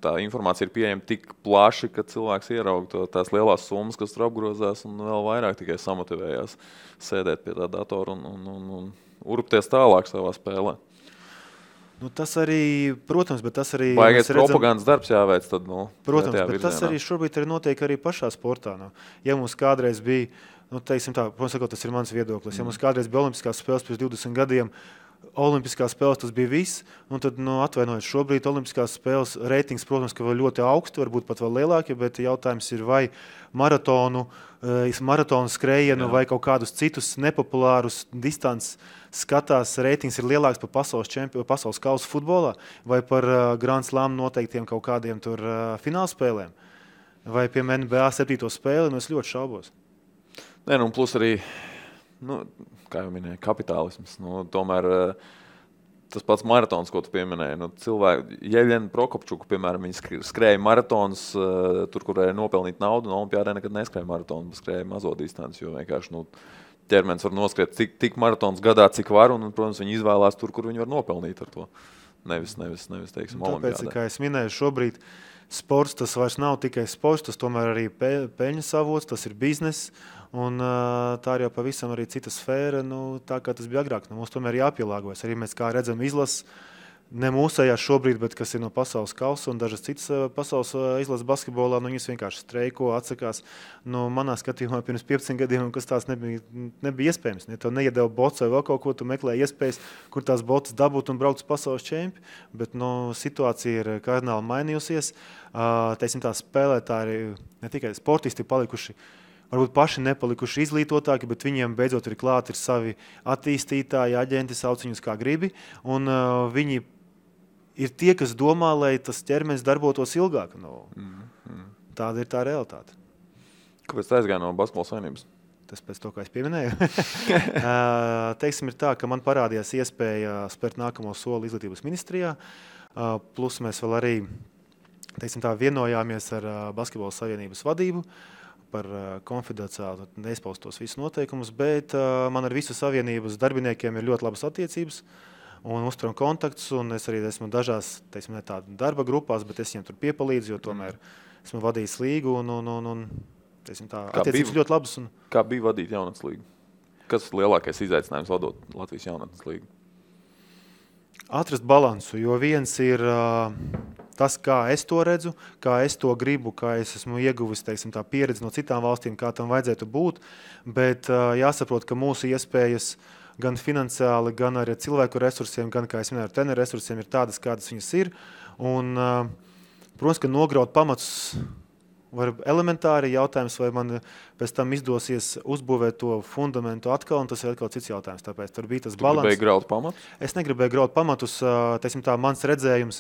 tā informācija ir pieejama tik plaši, ka cilvēks ieraug tās lielās summas, kas tur apgrozās, un vēl vairāk tikai samotivējās sēdēt pie tā datora un urpties tālāk savā spēlē. Tas arī, protams, bet tas arī... Baigais propagandas darbs jāveic tad, protams, bet virzienā. Tas arī šobrīd arī notiek arī pašā sportā. Ja mums kādreiz bija, teiksim tā, protams, tas ir mans viedoklis, ja mums kādreiz bija olimpiskās spēles pirms 20 gadiem, olimpiskās spēles tas bija viss, un tad, atvainojiet, šobrīd olimpiskās spēles reitings, protams, ka vēl ļoti augsti, varbūt pat vēl lielāki, bet jautājums ir, vai maratonu skrējienu vai kaut kādus citus nepopulārus distances skatās, reitings ir lielāks par pasaules kausa futbolā, vai par Grand Slam noteiktiem kaut kādiem tur finālspēlēm, vai piemēram NBA 7. spēli, es ļoti šaubos. Plus arī, kā jau minēja, kapitālisms. Tomēr tas pats maratons, ko tu pieminēji. Cilvēki, Jeļena Prokopčuka, piemēram, viņi skrēja maratons, tur, kur varēja nopelnīt naudu, un olimpiādē nekad neskrēja maratonu, skrēja mazo distanci, jo vienkārši ķermenis var noskriet tik maratons gadā, cik var, un, protams, viņi izvēlās tur, kur viņi var nopelnīt ar to. Nevis teiksim, olimpiādē. Tāpēc, kā es minēju, šobrīd sports tas vairs nav tikai sports, tas tomēr arī peļņas avots, tas ir biznes, un tā ir jau pavisam arī cita sfēra, tā kā tas bija agrāk. Mums tomēr jāpielāgojas. Arī mēs, kā redzam, izlases, ne mūsējās šobrīd, bet kas ir no pasaules kausa un dažas citas pasaules izlases basketbolā, viņas vienkārši streiko, atsakās. Manā skatījumā pirms 15 gadiem, kas tās nebija iespējams. Ja tev neiedeva bots vai vēl kaut ko, tu meklē iespējas, kur tās botas dabūt un braukt uz pasaules čempi, bet situācija ir kardināli mainījusies. Teiksim, tā spēlētāji, ne tikai sportisti palikuši, varbūt paši nepalikuši izglītotāki, bet viņiem beidzot ir klāt ir savi attīstītāji, aģenti, sauc viņus kā gribi, un viņi ir tie, kas domā, lai tas ķermenis darbotos ilgāk. Tāda ir tā realitāte. Kāpēc tā aizgāja no basketbola savienības? Tas pēc to, kā es pieminēju. Teiksim, ir tā, ka man parādījās iespēja spērt nākamo soli izglītības ministrijā, plus mēs vēl arī vienojāmies ar basketbola savienības vadību par konfidenciāli neizpaustos visus noteikumus, bet man ar visu savienības darbiniekiem ir ļoti labas attiecības un uzturam kontaktus, un es arī esmu dažās, ne tāda darba grupās, bet es viņiem tur piepalīdzu, jo tomēr esmu vadījis līgu un attiecības ļoti labas. Kā bija vadīt jaunatnes līgu? Kas ir lielākais izaicinājums vadot Latvijas jaunatnes līgu? Atrast balansu, jo viens ir tas, kā es to redzu, kā es to gribu, kā es esmu ieguvis tā pieredzi no citām valstīm, kā tam vajadzētu būt, bet jāsaprot, ka mūsu iespējas gan finansiāli, gan arī cilvēku resursiem, gan, kā es minēju, ar treneru resursiem ir tādas, kādas viņas ir. Un, protams, ka nograut pamatus var elementāri jautājums, vai man pēc tam izdosies uzbūvēt to fundamentu atkal, un tas ir atkal cits jautājums. Tāpēc tur bija tas balans. Tu gribēji graut pamatus? Es negribēju graut pamatus. Mans redzējums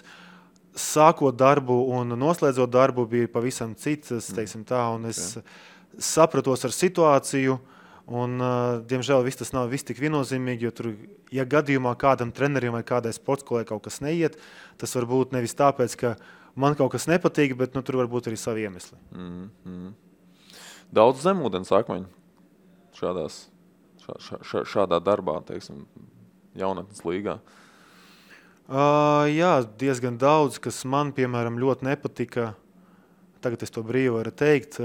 sākot darbu un noslēdzot darbu bija pavisam cits, un es sapratos ar situāciju, un, diemžēl, tas nav viss tik viennozīmīgi, jo tur, ja gadījumā kādam trenerim vai kādai sportskolai kaut kas neiet, tas var būt nevis tāpēc, ka man kaut kas nepatīk, bet tur var būt arī savi iemesli. Daudz zemūdens akmeņu šādā darbā, jaunatnes līgā. Jā, diezgan daudz, kas man, piemēram, ļoti nepatika, tagad es to brīvi varu teikt,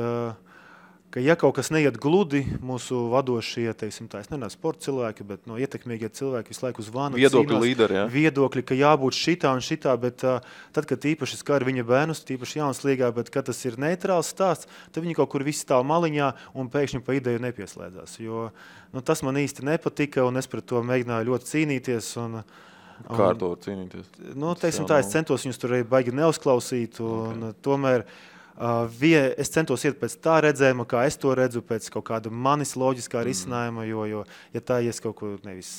ka ja kaut kas neiet gludi, mūsu vadošie, teiksim tā, es nerunāju sporta cilvēki, bet ietekmīgie cilvēki visu laiku zvana. Viedokļu līderi, jā. Viedokļi, ka jābūt šitā un šitā, bet tad, kad īpaši skar viņa bērnus, īpaši jaunas līgā, bet kad tas ir neitrāls stāsts, tad viņi kaut kur visi stāv maliņā un pēkšņi pa ideju nepieslēdzās. Jo tas man īsti nepatika un es pret to mēģināju ļoti cīnīties. Kā ar to cīnīties? Teiksim tā, es centos viņus tur baigi neuzklausīt un tomēr es centos iet pēc tā redzējuma, kā es to redzu, pēc kaut kāda manis loģiskā risinājuma, jo ja tā es kaut ko nevis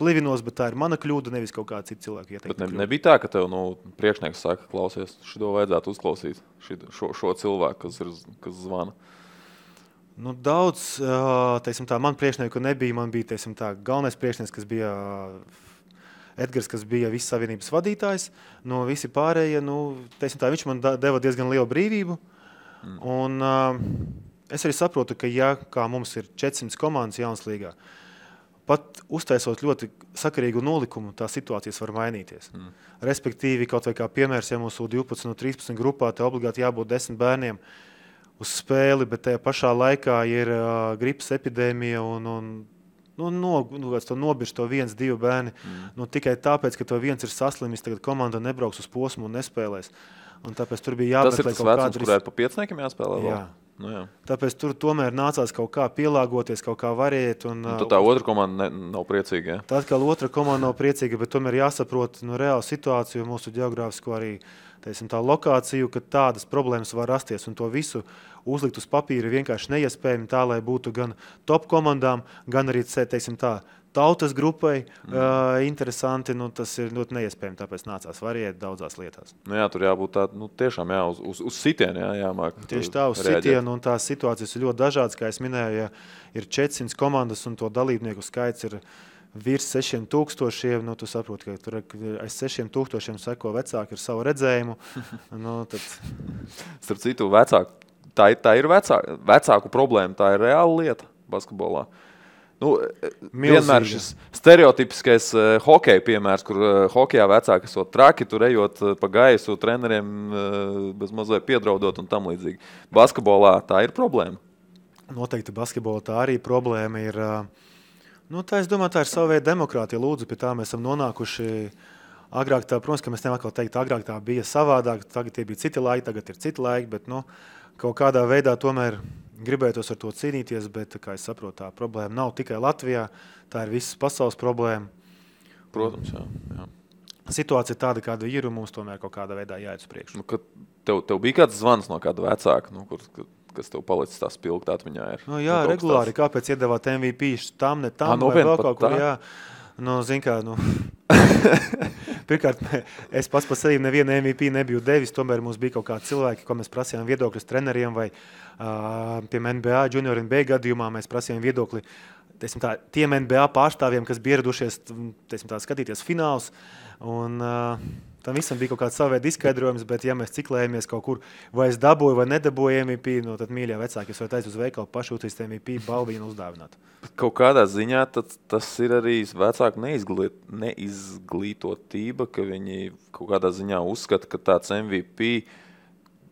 plivinos, bet tā ir mana kļūda, nevis kaut kāda cita cilvēka ieteikta. Bet nebija tā, ka tev priekšnieks saka, klausies, šito vajadzētu uzklausīt, šo cilvēku, kas zvana? Daudz, teiksim tā, man priekšnieku nebija, man bija, teiksim tā, galvenais priekšnieks, kas bija Edgars, kas bija visas savienības vadītājs, visi pārējie, teiksim tā, viņš man deva diezgan lielu brīvību. Un es arī saprotu, ka kā mums ir 400 komandas jaunas līgā, pat uztaisot ļoti sakarīgu nolikumu, tā situācijas var mainīties. Respektīvi, kaut vai kā piemērs, ja mūsu 12 no 13 grupā, te obligāti jābūt 10 bērniem uz spēli, bet tajā pašā laikā ir gripas epidēmija un nobirst to 1-2 bērni. Tikai tāpēc, ka to viens ir saslimis, tagad komanda nebrauks uz posmu un nespēlēs. Un tāpēc tur bija jāmeklē kaut kāda... Tas ir tas vecums, kurā ir pa piecniekiem jāspēlē vēl? Jā. Tāpēc tur tomēr nācās kaut kā pielāgoties, kaut kā variet. Tad tā otra komanda nav priecīga, jā? Tad, kā otra komanda nav priecīga, bet tomēr jāsaprot reālu situāciju, mūsu geogrāfisko arī tā lokāciju, ka tādas problēmas var rasties un to visu uzlikt uz papīra vienkārši neiespējami tā, lai būtu gan top komandām, gan arī, teiksim tā, tautas grupai interesanti, tas ir ļoti neiespējami, tāpēc nācās variēt daudzās lietās. Jā, tur jābūt tā, tiešām uz sitienu jāmāk. Tieši tā, uz sitienu, un tās situācijas ir ļoti dažādas, kā es minēju, ja ir 400 komandas un to dalībnieku skaits ir virs 6000, tu saproti, ka tur aiz 6000 seko vecāki ar savu redzējumu. Tad... Starp citu, tā ir vecāku problēma, tā ir reāla lieta basketbolā. Vienmēr šis stereotipiskais hokeja piemērs, kur hokejā vecāki esot traki, tur ejot pa gaisu, treneriem bez mazliet piedraudot un tam līdzīgi. Basketbolā tā ir problēma? Noteikti basketbolā tā arī problēma ir... es domāju, tā ir sava veida demokrātija. Lūdzu, pie tā mēs esam nonākuši agrāk. Protams, ka mēs nevaram teikt, agrāk tā bija savādāk, tagad tie bija citi laiki, tagad ir citi laiki, bet kaut kādā veidā tomēr gribētos ar to cīnīties, bet, kā es saprotu, tā problēma nav tikai Latvijā, tā ir visas pasaules problēma. Protams, jā. Situācija ir tāda, kāda ir, un mums tomēr kaut kādā veidā jāiet uz priekšu. Tev bija kāds zvans no kāda vecāka, kas tev palicis tā spilgt atmiņā ir? Jā, regulāri. Kāpēc iedevāt MVP tam, ne tam, vai vēl kaut kur, jā. Zin kā, pirmkārt, es pats par sevi nevienu MVP nebiju devis, tomēr mums bija kaut kādi cilvēki, ko mēs prasījām viedokļus treneriem vai piemēram NBA, Junior NBA gadījumā mēs prasījām viedokli tiem NBA pārstāvjiem, kas bija ieradušies skatīties fināls. Un tam visam bija kaut kāds savēd izskaidrojums, bet ja mēs ciklējamies kaut kur, vai es dabūju vai nedabūju MVP, tad mīļā vecāki, es varu aiz uz veikalu pašu uztaisīt MVP balvīnu uzdāvināt. Kaut kādā ziņā tas ir arī vecāku neizglītotība, ka viņi kaut kādā ziņā uzskata, ka tāds MVP,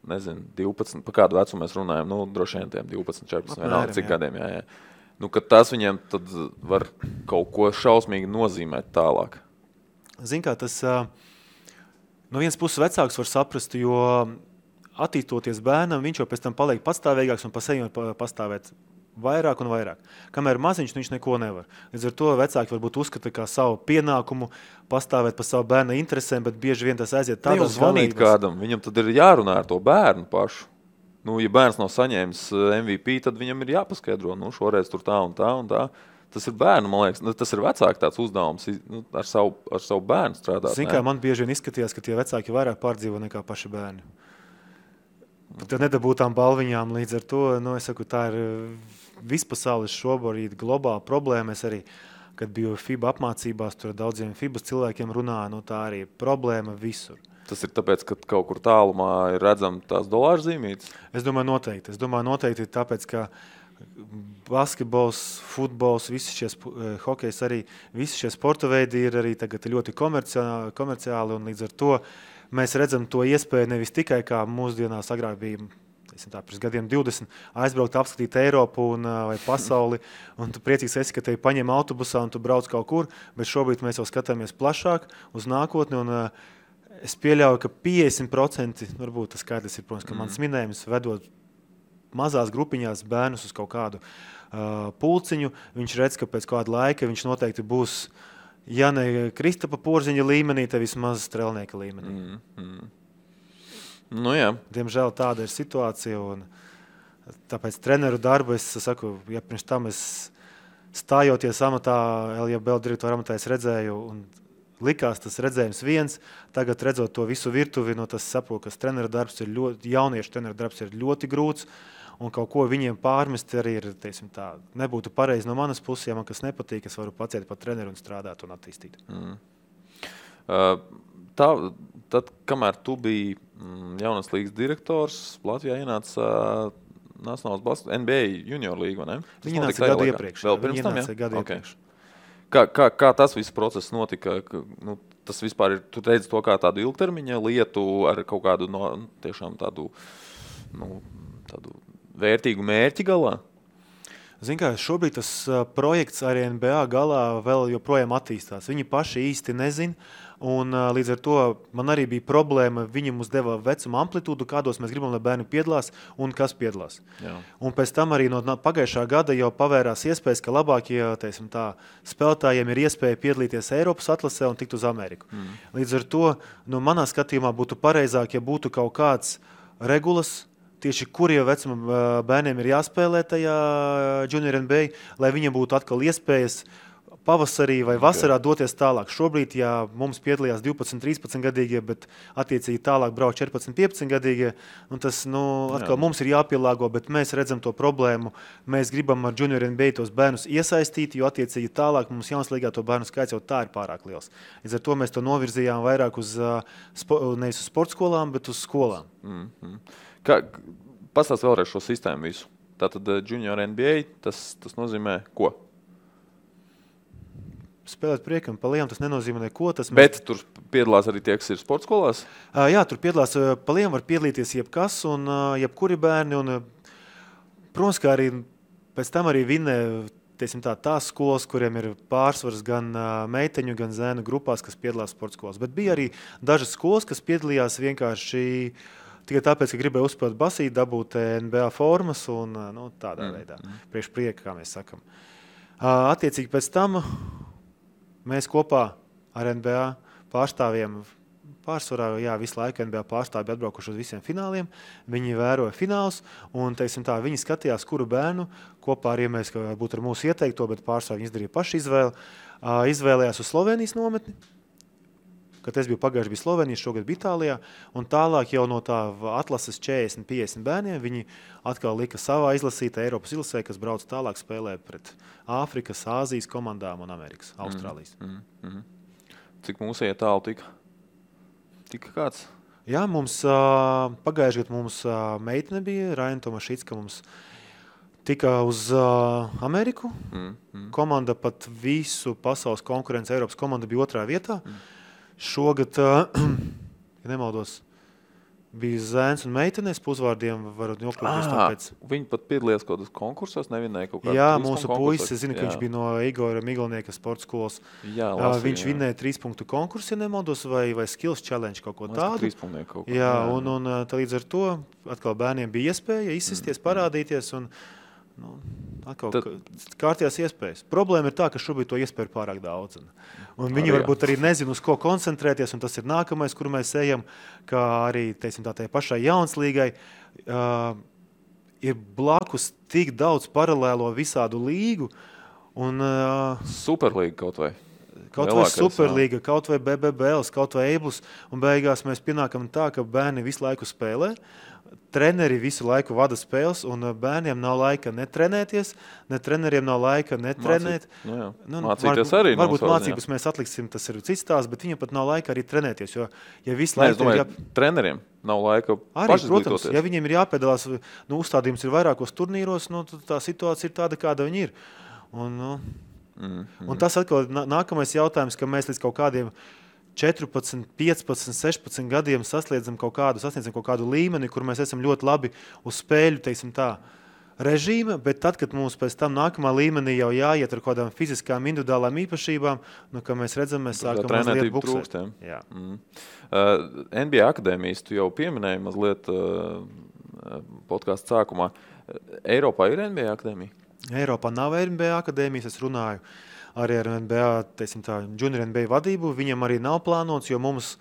12, pa kādu vecumu mēs runājam, droši vien tiem 12, 14, vienalga cik gadiem, jā. Ka tas viņiem tad var kaut ko šausmīgi nozīmēt tālāk. Zin kā, tas no vienas puses vecāks var saprast, jo attīstoties bērnam, viņš jau pēc tam paliek pastāvīgāks un pa sevi var pastāvēt vairāk un vairāk. Kamēr maziņš, viņš neko nevar. Līdz ar to vecāki varbūt uzskata kā savu pienākumu pastāvēt pa savu bērna interesēm, bet bieži vien tas aiziet tādās zvanīt kādam, viņam tad ir jārunā ar to bērnu pašu. Ja bērns nav saņēmis MVP, tad viņam ir jāpaskaidro, šoreiz tur tā un tā un tā. Tas ir bērnu, man liekas, tas ir vecāki tāds uzdevums, ar savu bērnu strādāt. Zin kā, man bieži vien izskatījās, ka tie vecāki vairāk pārdzīvo nekā paši bērni. Pat nedabūtām balviņām līdz ar to, es saku, tā ir vispasaules šobrīd globāla problēma. Es arī, kad biju FIBA apmācībās, tur daudziem FIBA cilvēkiem runāju, tā arī ir problēma visur. Tas ir tāpēc, ka kaut kur tālumā ir redzama tās dolāru zīmītes? Es domāju noteikti tāpēc, ka basketbols, futbols, visi šie hokejs arī, visi šie sporta veidi ir arī tagad ļoti komerciāli un līdz ar to mēs redzam to iespēju nevis tikai kā mūsdienās agrāk bija pirms gadiem 20 aizbraukt, apskatīt Eiropu vai pasauli, un tu priecīgs esi, ka tevi paņem autobusā un tu brauc kaut kur, bet šobrīd mēs jau skatāmies plašāk uz nākotni, un es pieļauju, ka 50%, varbūt tas skaidrs ir, protams, ka mans minējums vedot mazās grupiņās bērnus uz kaut kādu pulciņu, viņš redz, ka pēc kāda laika viņš noteikti būs, ja ne Kristapa Porziņa līmenī, te vismaz strelnieka līmenī. Nu, jā. Diemžēl tāda ir situācija, un tāpēc treneru darbu es saku, ja pirms tam es stājoties amatā, LJBL direktora amatā es redzēju, un likās tas redzējums viens, tagad redzot to visu virtuvi, no tas saprotu, ka treneru darbs ir ļoti, jauniešu treneru darbs ir ļoti grūts, un kaut ko viņiem pārmest arī ir, teiksim tā, nebūtu pareizi no manas puses, ja man kas nepatīk, es varu paciet par treneru un strādāt un attīstīt. Tad, kamēr tu biji jaunas līgas direktors, Latvijā ienāca Nacionālās NBA junior līga, vai ne? Viņi nāca gadu iepriekš. Vēl pirms tam, iepriekš. Kā tas viss process notika? Nu, tas vispār ir, tu redzi to kā tādu ilgtermiņa lietu ar kaut kādu tiešām tādu vērtīgu mērķi galā? Zin kā, šobrīd tas projekts arī NBA galā vēl joprojām attīstās. Viņi paši īsti nezin, un līdz ar to man arī bija problēma. Viņi mums deva vecuma amplitūdu, kādos mēs gribam, lai bērni piedalās un kas piedalās. Jā. Un pēc tam arī no pagājušā gada jau pavērās iespējas, ka labākie spēlētājiem ir iespēja piedalīties Eiropas atlasē un tikt uz Ameriku. Līdz ar to, manā skatījumā būtu pareizāk, ja būtu kaut kāds regulas, tieši kuriem vecuma bērniem ir jāspēlē tajā Junior NBA, lai viņiem būtu atkal iespējas pavasarī vai vasarā doties tālāk. Šobrīd, ja mums piedalījās 12-13 gadīgie, bet attiecīgi tālāk brauc 14-15 gadīgie, un tas atkal mums ir jāpielāgo, bet mēs redzam to problēmu. Mēs gribam ar Junior NBA tos bērnus iesaistīt, jo attiecīgi tālāk mums jaunas līgā to bērnu skaits jau tā ir pārāk liels. Līdz ar to mēs to novirzījām vairāk uz nevis uz sportskolām, bet uz skolām. Pastāst vēlreiz šo sistēmu visu. Tātad Junior NBA, tas nozīmē ko? Spēlēt priekam pa lielām, tas nenozīmē neko. Bet tur piedalās arī tie, kas ir sportskolās? Jā, tur piedalās pa lielām, var piedalīties jebkas un jebkuri bērni. Un, protams, kā arī pēc tam arī vinnē tās skolas, kuriem ir pārsvars gan meiteņu, gan zēnu grupās, kas piedalās sportskolās. Bet bija arī dažas skolas, kas piedalījās vienkārši tikai tāpēc, ka gribēja uzspēlēt basīt, dabūt NBA formas un tādā veidā. Priekš prieka, kā mēs sakam. Attiecīgi pēc tam mēs kopā ar NBA pārstāvjiem pārsvarā, visu laiku NBA pārstāvji atbraukuši uz visiem fināliem. Viņi vēroja finālus un, viņi skatījās, kuru bērnu kopā ar mēs, ka būtu ar mūsu ieteikto, bet pārstāvji izdarīja paši izvēli. Izvēlējās uz Slovenijas nometni, kad es biju pagājuši bija Slovenija, šogad bija Itālijā, un tālāk jau no tā atlases 40-50 bērniem viņi atkal lika savā izlasītā Eiropas izlasē, kas brauc tālāk spēlē pret Āfrikas, Āzijas komandām un Amerikas, Austrālijas. Cik mūsu tālu tika? Tika kāds? Jā, mums pagājuši gadu mums meitene bija, Raina Tomašicka mums tika uz Ameriku. Komanda pat visu pasaules konkurences Eiropas komanda bija 2. vietā. Šogad, ja nemaldos, bija zēns un meitenēs, uzvārdiem varu nokļūt tāpēc. Viņi pat piedalījās kaut kādos konkursos, nevinēja kaut kādā. Jā, mūsu puisis, es zinu, ka viņš bija no Igora Miglnieka sporta skolas. Jā, viņš vinnēja 3 punktu konkursu, ja nemaldos, vai Skills Challenge kaut ko tādu. 3 punktu kaut ko. Jā, un līdz ar to atkal bērniem bija iespēja izsisties, parādīties un atkal kārtījās iespējas. Problēma ir tā, ka šobrīd to iespēju ir pārāk daudz. Un viņi varbūt arī nezina, uz ko koncentrēties, un tas ir nākamais, kuru mēs ejam, kā arī, tai pašai jaunas līgai. Ir blakus tik daudz paralēlo visādu līgu. Un, Superlīga kaut vai. Kaut vai Superlīga, kaut vai BBBL, kaut vai Eiblus. Un beigās mēs pienākam tā, ka bērni visu laiku spēlē. Treneri visu laiku vada spēles, un bērniem nav laika netrenēties, ne treneriem nav laika netrenēt. Mācīties arī. Varbūt mācības mēs atliksim, tas ir cits tās, bet viņam pat nav laika arī trenēties. Jo, ja visu laiku treneriem nav laika pašizglītoties. Protams, ja viņiem ir jāpiedalās, uzstādījums ir vairākos turnīros, tā situācija ir tāda, kāda viņi ir. Un tas atkal nākamais jautājums, ka mēs līdz kaut kādiem 14, 15, 16 gadiem sasniedzam kaut kādu līmeni, kur mēs esam ļoti labi uz spēļu, teiksim tā, režīma, bet tad, kad mums pēc tam nākamā līmenī jau jāiet ar kādām fiziskām, individuālām īpašībām, kā mēs redzam, mēs sākam mazliet buksēt. Jā. NBA akadēmijas tu jau pieminēji mazliet podkāstu sākumā. Eiropā ir NBA akadēmija? Eiropā nav NBA akadēmijas, es runāju arī ar NBA, teiksim tā, junior NBA vadību. Viņam arī nav plānots, jo mums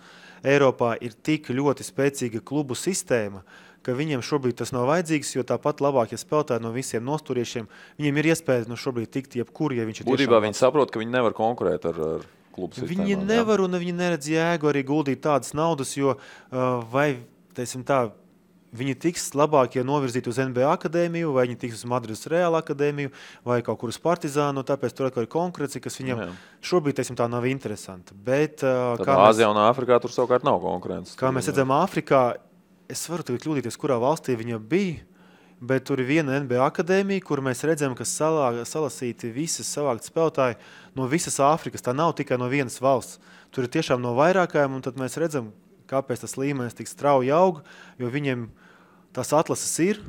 Eiropā ir tik ļoti spēcīga klubu sistēma, ka viņiem šobrīd tas nav vajadzīgs, jo tāpat labākie spēlētāji no visiem nosturiešiem, viņiem ir iespēja šobrīd tikt jebkur, ja viņš ir būtībā viņi saprot, ka viņi nevar konkurēt ar klubu sistēmām. Viņi nevar un viņi neredz jēgu arī guldīt tādas naudas, jo vai, teiksim tā, viņi tiks labākie novirzīti uz NBA akadēmiju, vai viņi tiks uz Madrides Real akadēmiju, vai kaut kur uz Partizānu, tāpēc tur atkal ir konkurence, kas viņam šobrīd, teiksim tā, nav interesanti. Bet, Āzijā un Āfrikā tur savukārt nav konkurences. Kā mēs redzam Āfrikā, es varu tagad kļūdīties, kurā valstī viņa bija, bet tur ir viena NBA akadēmija, kur mēs redzam, ka salasīti visas savākt spēlētāji no visas Āfrikas. Tā nav tikai no vienas valsts. Tur ir tiešām no vairākajām, un tad mēs redzam, kāpēc tas līmenis tik strauji aug, jo viņiem tās atlases ir.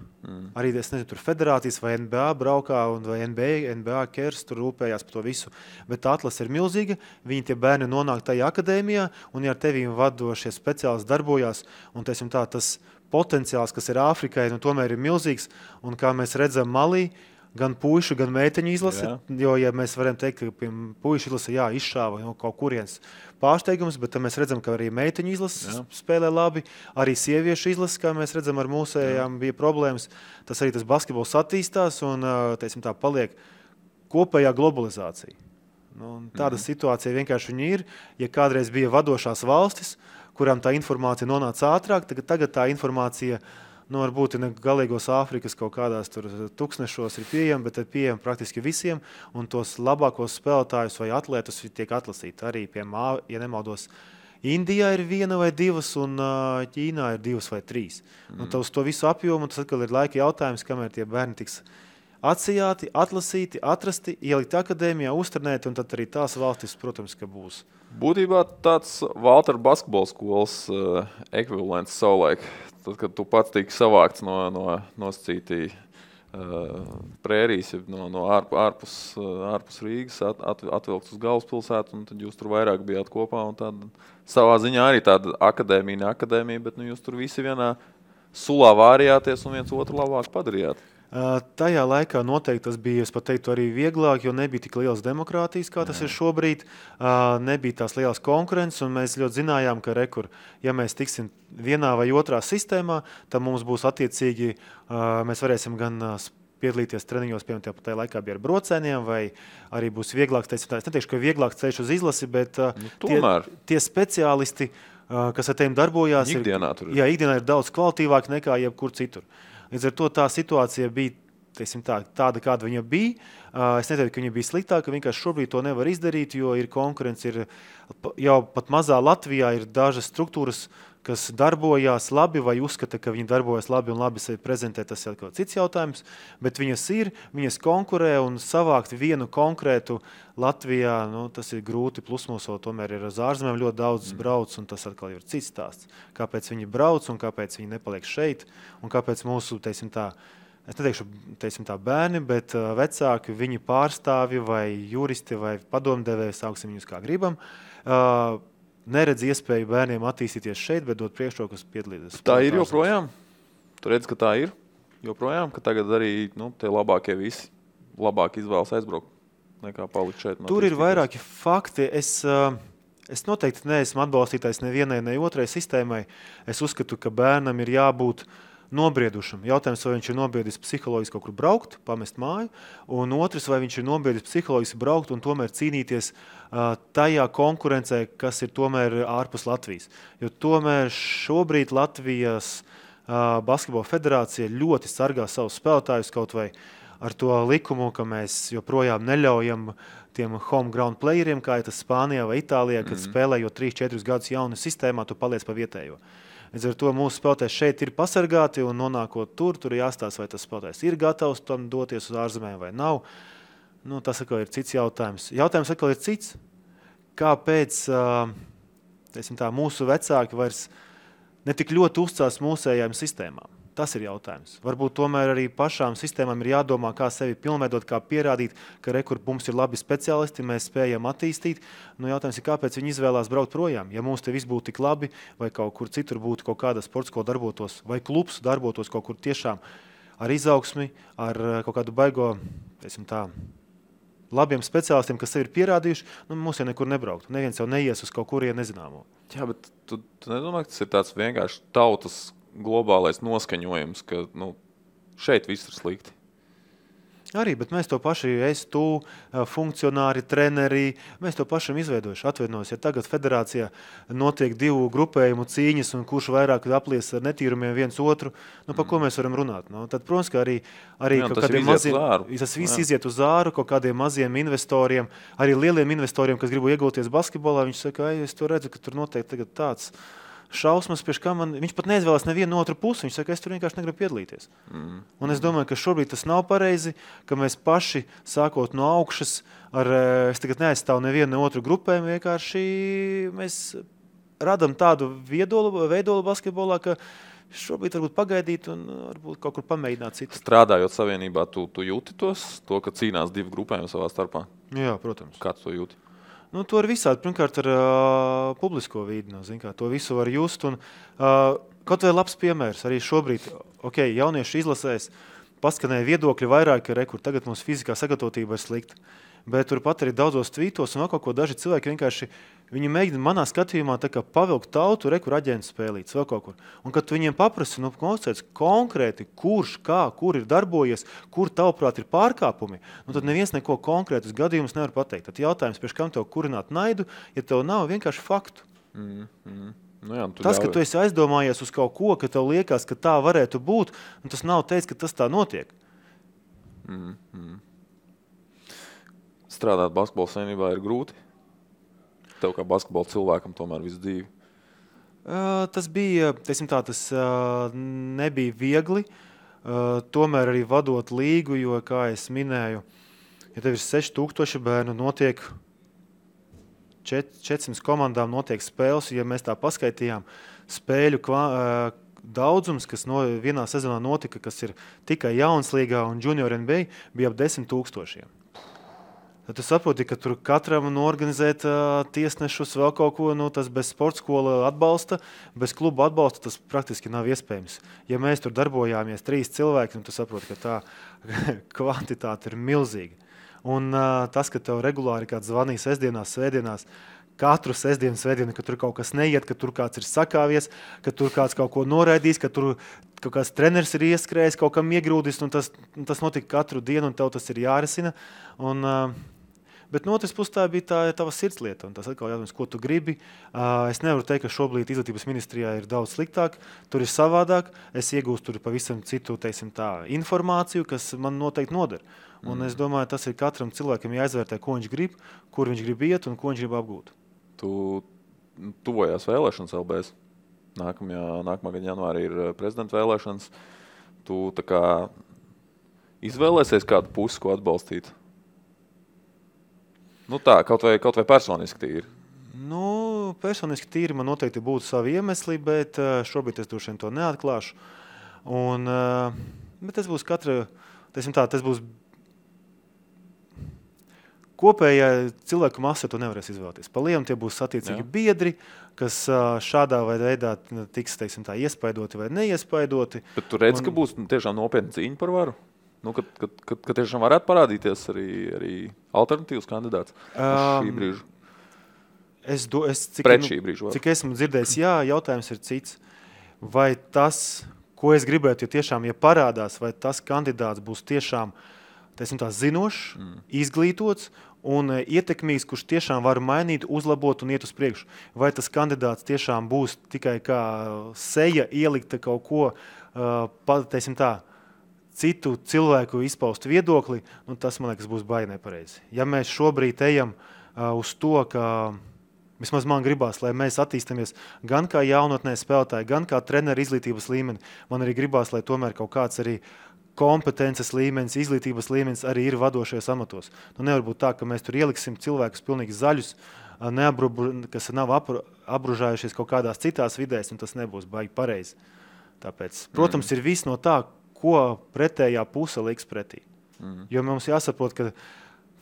Arī, es nezinu, tur federācijas vai NBA braukā, vai NBA kers tur rūpējās par to visu. Bet tā atlase ir milzīga, viņi tie bērni nonāk tajā akadēmijā, un ja ar tevīm vadošie speciālisti darbojās, un teiksim tā, tas potenciāls, kas ir Āfrikai, tomēr ir milzīgs, un kā mēs redzam Malī, gan puišu, gan meiteņu izlase, jo, ja mēs varam teikt, ka pie puišu izlase, izšāva kaut kurienes pārsteigums, bet mēs redzam, ka arī meiteņu izlase spēlē labi, arī sieviešu izlase, kā mēs redzam, ar mūsējām bija problēmas. Tas arī tas basketbols attīstās un, teiksim tā, paliek kopējā globalizācija. Tāda situācija vienkārši viņi ir. Ja kādreiz bija vadošās valstis, kurām tā informācija nonāca ātrāk, tagad tā informācija varbūt ne galīgos Āfrikas kaut kādās tur tūkstnešos ir pieejama, bet ir pieejama praktiski visiem, un tos labākos spēlētājus vai atlētus tiek atlasīti. Arī, piemēram, ja nemaldos, Indijā ir 1 vai 2, un Ķīnā ir 2 vai 3. Un uz to visu apjomu, tas atkal ir laika jautājums, kamēr tie bērni tiks atsijāti, atlasīti, atrasti, ielikt akadēmijā, uztrenēti, un tad arī tās valstis, protams, ka būs. Būtībā tāds Valtera basketbola skolas ekvivalents savulaik. Tad, kad tu pats tiki savākts no nosacītī prērijas, no ārpus Rīgas, atvilkts uz galvaspilsētu, un tad jūs tur vairāk bijāt kopā, un tad savā ziņā arī tāda akadēmija, ne akadēmija, bet jūs tur visi vienā sulā vārījāties un viens otru labāk padarījāt. Tajā laikā noteikti tas bija, es pat teiktu, arī vieglāk, jo nebija tik liels demokrātijas, kā tas ir šobrīd. Nebija tās lielas konkurences, un mēs ļoti zinājām, ka ja mēs tiksim vienā vai otrā sistēmā, tad mums būs attiecīgi, mēs varēsim gan piedalīties treniņos, piemēram, tajā laikā bija ar brocēniem, vai arī būs vieglāks, es neteikšu, ka vieglāks ceļš uz izlasi, bet tie speciālisti, kas ar tiem darbojās, ikdienā ir daudz kvalitīvāk nekā jebkur citur. Līdz ar to tā situācija bija tāda, kāda viņa bija. Es neteiktu, ka viņa bija sliktāka, vienkārši šobrīd to nevar izdarīt, jo ir konkurence, jau pat mazā Latvijā ir dažas struktūras, kas darbojās labi vai uzskata, ka viņi darbojas labi un labi sevi prezentē, tas ir kaut cits jautājums, bet viņas konkurē un savākt vienu konkrētu Latvijā, tas ir grūti, plus mums tomēr ir uz ārzemēm ļoti daudz brauc, un tas atkal ir cits stāsts. Kāpēc viņi brauc un kāpēc viņi nepaliek šeit, un kāpēc mūsu, es neteikšu, bērni, bet vecāki, viņi pārstāvi vai juristi vai padomdevēji, sauksim viņus kā gribam, neredz iespēju bērniem attīstīties šeit, bet dot priekšrokas piedalīties. Tā ir joprojām? Tu redz, ka tā ir joprojām, ka tagad arī tie labākie visi labāk izvēlas aizbraukt nekā palikt šeit? Tur ir vairāki fakti. Es noteikti neesmu atbalstītājs nevienai, ne otrai sistēmai. Es uzskatu, ka bērnam ir jābūt nobriedušam. Jautājums, vai viņš ir nobriedis psiholoģiski kaut kur braukt, pamest māju, un otrs, vai viņš ir nobriedis psiholoģiski braukt un tomēr cīnīties tajā konkurencē, kas ir tomēr ārpus Latvijas. Jo tomēr šobrīd Latvijas basketbola federācija ļoti sargā savus spēlētājus kaut vai ar to likumu, ka mēs joprojām neļaujam tiem home ground playeriem, kā ir tas Spānijā vai Itālijā, kad spēlējot 3-4 gadus jaunu sistēmā, tu paliec pa vietējo. Līdz ar to mūsu spēlētājs šeit ir pasargāti, un nonākot tur jāstāsta, vai tas spēlētājs ir gatavs tam doties uz ārzemēm vai nav. Tas atkal ir cits jautājums. Jautājums atkal ir cits. Kāpēc mūsu vecāki vairs ne tik ļoti uzcās mūsējām sistēmām. Tas ir jautājums. Varbūt tomēr arī pašām sistēmām ir jādomā, kā sevi pilnveidot, kā pierādīt, ka kur mums ir labi speciālisti, mēs spējam attīstīt. Jautājums ir, kāpēc viņi izvēlās braukt projām? Ja mums te viss būtu tik labi, vai kaut kur citur būtu kaut kāda sportskola darbotos, vai klubs darbotos kaut kur tiešām ar izaugsmi, ar kaut kādu baigo, labiem speciālistiem, kas sevi ir pierādījuši, mums jau nekur nebraukt. Neviens jau neies uz kaut kurien nezināmo. Jā, bet tu nedomā, ka tas ir tāds vienkārši tautas globālais noskaņojums, ka šeit viss ir slikti. Arī, bet mēs to paši, tu, funkcionāri, treneri, mēs to pašam izveidojuši, atvainojos. Ja tagad federācijā notiek 2 grupējumu cīņas un kurš vairāk aplies ar netīrumiem viens otru, par ko mēs varam runāt? Tad, protams, ka arī kaut kādiem maziem, tas viss iziet uz āru, kaut kādiem maziem investoriem, arī lieliem investoriem, kas gribu iegulties basketbolā, viņš saka, es to redzu, ka tur noteikti tagad tāds šausmas, viņš pat neizvēlās nevienu otru pusi. Viņš saka, es tur vienkārši negribu piedalīties. Un es domāju, ka šobrīd tas nav pareizi, ka mēs paši, sākot no augšas, es tagad neaizstāvu nevienu otru grupējumu, vienkārši mēs radam tādu veidolu basketbolā, ka šobrīd varbūt pagaidīt un varbūt kaut kur pamēģināt citu. Strādājot savienībā, tu jūti to, ka cīnās 2 grupējumi savā starpā? Jā, protams. Kā tu to jūti? To ar visādi. Pirmkārt, ar publisko vīdi. To visu var just. Un, kaut vēl labs piemērs. Arī šobrīd jauniešu izlasēs paskanēja viedokļi vairāk, ka tagad mums fizikā sagatavotība ir slikta. Bet turpat arī daudzos tvītos un kaut ko daži cilvēki vienkārši viņi mēģina manā skatījumā pavilkt tautu, kur aģents spēlīts vēl kaut kur. Un kad tu viņiem paprasi, konkrēti, kurš, kā, kur ir darbojies, kur tavuprāt ir pārkāpumi, tad neviens neko konkrētus gadījumus nevar pateikt. Tad jautājums, priekš kam tev kurināt naidu, ja tev nav vienkārši faktu. Tas, ka tu esi aizdomājies uz kaut ko, ka tev liekas, ka tā varētu būt, un tas nav teicis, ka tas tā notiek. Strādāt basketbola savienībā ir grūti? Tev kā basketbola cilvēkam tomēr visu dzīvi? Tas bija, tas nebija viegli. Tomēr arī vadot līgu, jo, kā es minēju, ja tev ir 6000 bērnu, notiek 400 komandām notiek spēles, ja mēs tā paskaitījām spēļu daudzums, kas vienā sezonā notika, kas ir tikai jaunas līgā un junior NBA, bija ap 10 000. Tad tu saproti, ka tur katram norganizēt tiesnešus vēl kaut ko, tas bez sportskola atbalsta, bez kluba atbalsta, tas praktiski nav iespējams. Ja mēs tur darbojāmies 3 cilvēki, tu saproti, ka tā kvantitāte ir milzīga. Un tas, ka tev regulāri kāds zvanīja sestdienās, svētdienās, katru svētdienu, ka tur kaut kas neiet, ka tur kāds ir sakāvies, ka tur kāds kaut ko noraidīs, ka tur kaut kāds treneris ir ieskrējis, kaut kam iegrūdis, un tas notika katru dienu, un tev tas ir jārisina. Bet no otras puses tā bija tava sirdslieta, un tas atkal jautājums, ko tu gribi. Es nevaru teikt, ka šobrīd izglītības ministrijā ir daudz sliktāk, tur ir savādāk, es iegūstu tur pavisam citu, informāciju, kas man noteikti noder. Un es domāju, tas ir katram cilvēkam jāizvērtē, ko viņš grib, kur viņš grib iet un ko viņš grib apgūt. Tu tuvojās vēlēšanas LBS. Nākamā gada janvārī ir prezidenta vēlēšanas. Tu tā kā izvēlēsies kādu pusi, ko atbalstīt? Kaut vai personiski tīri. Personiski tīri man noteikti būtu savi iemesli, bet šobrīd es droši vien to neatklāšu. Bet tas būs tas būs kopējā cilvēku masa, to nevarēs izvēlēties. Pa lielum tie būs attiecīgi biedri, kas šādā veidā tiks, iespaidoti vai neiespaidoti. Bet tu redz, ka būs tiešām nopietna cīņa par varu? Ka tiešām varētu parādīties arī alternatīvs kandidāts šī brīža? Cik esmu dzirdējis, jautājums ir cits. Vai tas, ko es gribētu, ja parādās, vai tas kandidāts būs tiešām zinošs, izglītots un ietekmīgs, kurš tiešām var mainīt, uzlabot un iet uz priekšu. Vai tas kandidāts tiešām būs tikai kā seja ielikta kaut ko, citu cilvēku izpaust viedokli, tas, man liekas, būs baigi nepareizi. Ja mēs šobrīd ejam uz to, ka vismaz man gribās, lai mēs attīstamies gan kā jaunatnē spēlētāji, gan kā treneri izglītības līmeni, man arī gribās, lai tomēr kaut kāds arī kompetences līmenis, izglītības līmenis arī ir vadošajos amatos. Nevar būt tā, ka mēs tur ieliksim cilvēkus pilnīgi zaļus, kas nav apbružājušies kaut kādās citās vidēs, un tas nebūs baigi pareizi. Tāpēc, protams, ir viss no tā, ko pretējā puse liks pretī. Jo mums jāsaprot, ka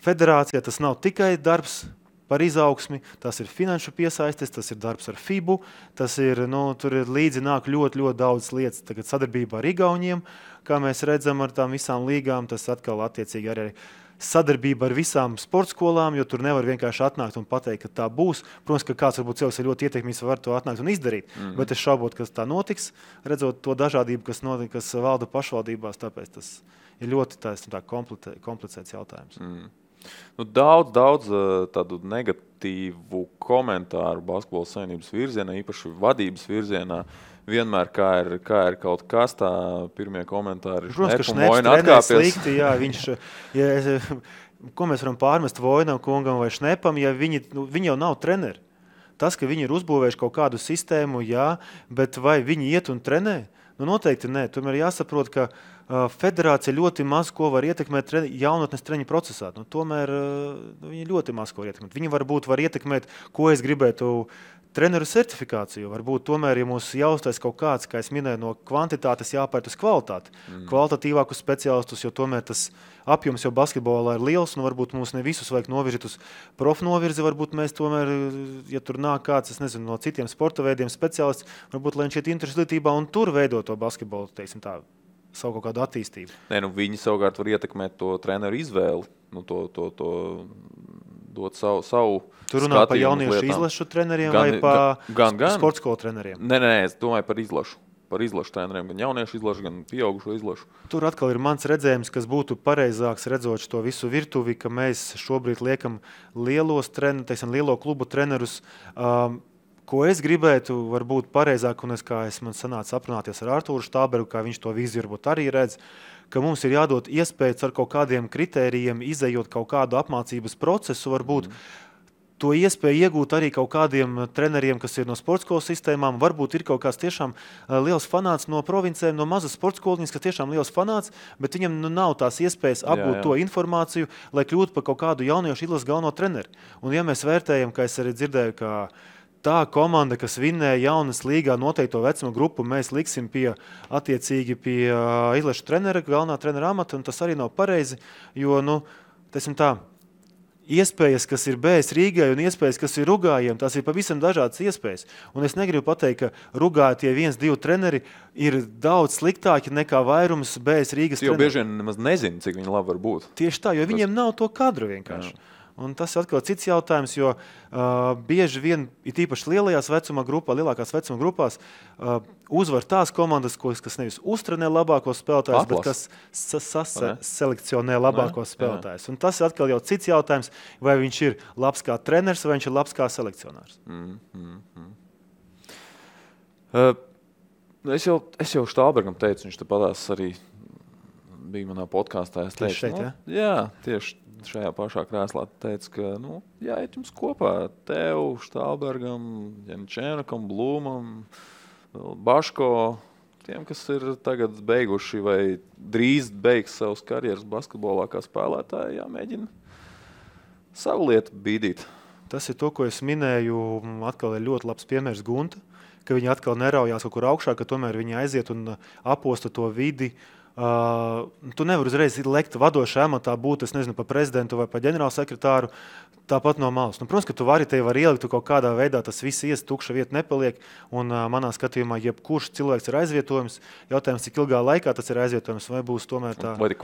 federācijā tas nav tikai darbs par izaugsmi, tas ir finanšu piesaistes, tas ir darbs ar FIBU, tas ir, tur ir līdzi nāk ļoti daudz lietas. Tagad sadarbībā ar Igauniem, kā mēs redzam ar tām visām līgām, tas atkal attiecīgi arī sadarbība ar visām sportskolām, jo tur nevar vienkārši atnākt un pateikt, ka tā būs. Protams, ka kāds varbūt cilvēks ir ļoti ietekmīgs, var to atnākt un izdarīt, bet es šaubot, ka tā notiks, redzot to dažādību, kas valda pašvaldībās, tāpēc tas ir ļoti komplicēts jautājums. Daudz tādu negatīvu komentāru basketbola savienības virzienā, īpaši vadības virzienā. Vienmēr, kā ir kaut kas, tā pirmie komentāri. Protams, ka Šneps trenēs slikti, ko mēs varam pārmest Vojnam kungam vai Šnepam, ja viņi jau nav treneri. Tas, ka viņi ir uzbūvējuši kaut kādu sistēmu, bet vai viņi iet un trenē? Noteikti nē. Tomēr jāsaprot, ka federācija ļoti maz ko var ietekmēt jaunatnes treņu procesā. Tomēr viņi ļoti maz ko var ietekmēt. Viņi varbūt var ietekmēt, ko es gribētu treneru certifikāciju. Varbūt tomēr, ja mums jāuztais kaut kāds, kā es minēju, no kvantitātes jāpērt uz kvalitāti. Kvalitatīvākus speciālistus, jo tomēr tas apjoms jau basketbolā ir liels, un varbūt mums ne visus vajag novirzīt uz profnovirzi. Varbūt mēs tomēr, ja tur nāk kāds, es nezinu, no citiem sporta veidiem speciālists, varbūt, lai viņš iet interesētībā un tur veido to basketbolu, teiksim tā, savu kaut kādu attīstību. Viņi savukārt var ietekmēt to treneru izvēli, dot savu tur runā par jauniešu izlašu treneriem vai par sportskolu treneriem? Nē, es domāju par izlašu. Par izlašu treneriem, gan jauniešu izlašu, gan pieaugušo izlašu. Tur atkal ir mans redzējums, kas būtu pareizāks redzot to visu virtuvi, ka mēs šobrīd liekam lielo klubu trenerus, ko es gribētu, varbūt pareizāk, un man sanāca aprunāties ar Artūru Štāberu, kā viņš to viziju varbūt arī redz, ka mums ir jādod iespējas ar kaut kādiem kritērijiem, izejot kaut kādu apmācības procesu, varbūt to iespēju iegūt arī kaut kādiem treneriem, kas ir no sportskolas sistēmām. Varbūt ir kaut kāds tiešām liels fanāts no provincēm, no mazas sportskoliņas, kas tiešām liels fanāts, bet viņam nav tās iespējas apgūt to informāciju, lai kļūtu par kaut kādu jauniešu izlases galveno treneri. Un ja mēs vērtējam, kā es arī dzirdēju, ka tā komanda, kas vinnēja jaunas līgā noteikto vecuma grupu, mēs liksim attiecīgi pie izlašu trenera, galvenā trenera amata, un tas arī nav pareizi, jo, iespējas, kas ir BS Rīgai un iespējas, kas ir Rugājiem, tās ir pavisam dažādas iespējas. Un es negribu pateikt, ka Rugā tie 1-2 treneri ir daudz sliktāki nekā vairums BS Rīgas treneri. Jo bieži vien nemaz nezinu, cik viņi labi var būt. Tieši tā, jo viņiem nav to kadru vienkārši. Jā. Un tas ir atkal cits jautājums, jo bieži vien, it īpaši lielākās vecuma grupās, uzvar tās komandas, kas nevis uztrenē labākos spēlētājus, bet kas selekcionē labākos spēlētājus. Un tas ir atkal jau cits jautājums, vai viņš ir labs kā treneris, vai viņš ir labs kā selekcionārs. Es jau Štābergam teicu, viņš te padās arī bija manā podkāstā. Es teicu, tieši šajā pašā krēslā teica, ka jāiet jums kopā tev, Štābergam, Jančēnakam, Blūmam, Baško, tiem, kas ir tagad beiguši vai drīz beigs savas karjeras basketbolā kā spēlētāji, jāmēģina savu lietu bīdīt. Tas ir to, ko es minēju, atkal ir ļoti labs piemērs Gunta, ka viņi atkal neraujās kaut kur augšā, ka tomēr viņi aiziet un aposta to vidi. Tu nevari uzreiz lekt vadošā amatā būt, es nezinu, pa prezidentu vai pa ģenerālsekretāru, tāpat no malas. Protams, ka tu vari ielikt kaut kādā veidā, tas viss ies, tukša vieta nepaliek, un manā skatījumā jebkurš cilvēks ir aizvietojums. Jautājums, cik ilgā laikā tas ir aizvietojums, vai būs tomēr tā... Vai ir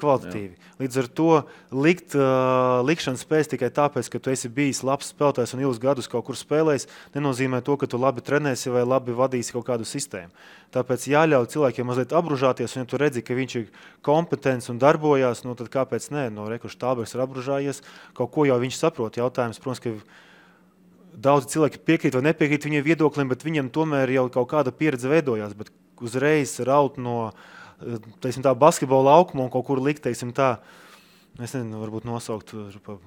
kvalitatīvi. Līdz ar to likšanas spējas tikai tāpēc, ka tu esi bijis labs spēlētājs un ilgus gadus kaut kur spēlējis, nenozīmē to, ka tu labi trenēsi vai labi vadīsi kaut kādu sistēmu. Tāpēc jāļauj cilvēkiem mazliet apbružāties, un ja tu redzi, ka viņš ir kompetents un darbojās, tad kāpēc nē? Štābergs ir apbružājies, kaut ko jau viņš saprot. Jautājums, protams, ka daudzi cilvēki piekrīt vai nepiekrīt viņiem viedoklim, bet viņiem tomēr jau kaut kāda pieredze veidojās, bet uzreiz raut no basketbola laukuma un kaut kur likt, es nezinu, varbūt nosaukt pa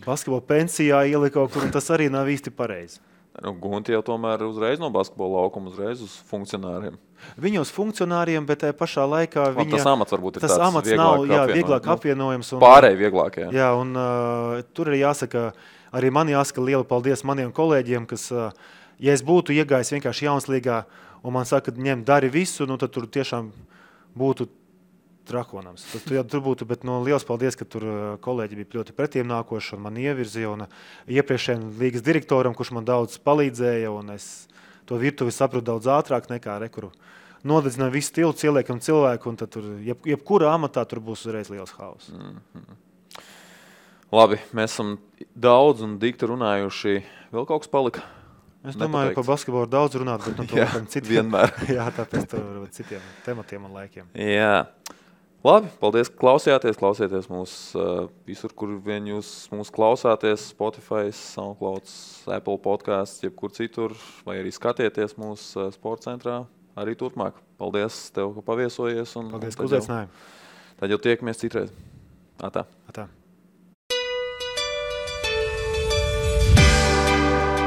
basketbola pensijā ielikt kaut kur, un tas arī nav īsti pareizi. Gunti jau tomēr uzreiz no basketbola laukuma uzreiz uz funkcionāriem. Viņa uz funkcionāriem, bet pašā laikā tas amats varbūt ir tas amats nav vieglāk apvienojams. Pārēj vieglāk, Jā, un tur ir jāsaka, arī man jāsaka liela paldies maniem kolēģiem, kas, ja es būtu iegājis vienkārši Jaunslīgā un man saka, ņem, dari visu, nu, tad tur tiešām būtu trakonams. Tur būtu, bet liels paldies, ka tur kolēģi bija ļoti pretīm nākoši un man ievirzīja. Un iepriekšējiem līgas direktoram, kurš man daudz palīdzēja, un es to virtuvi sapratu daudz ātrāk nekā rekuru. Nodedzināja visu stilu, ieliekam cilvēku, un tad tur, jebkurā amatā tur būs uzreiz liels haus. Labi, mēs esam daudz un dikti runājuši. Vēl kaut kas palika? Es domāju, par basketbolu daudz runāt, bet to citiem. Vienmēr. Jā, tāpēc tur citiem tematiem un laikiem. Jā. Labi, paldies, ka klausījāties. Klausieties mūs visur, kur vien jūs mūs klausāties. Spotify, SoundCloud, Apple podcasts, jebkur citur. Vai arī skatieties mūsu sporta centrā arī turpmāk. Paldies tev, ka paviesojies. Paldies, ka uzaicināji. Tad jau tiekamies citreiz. Atā.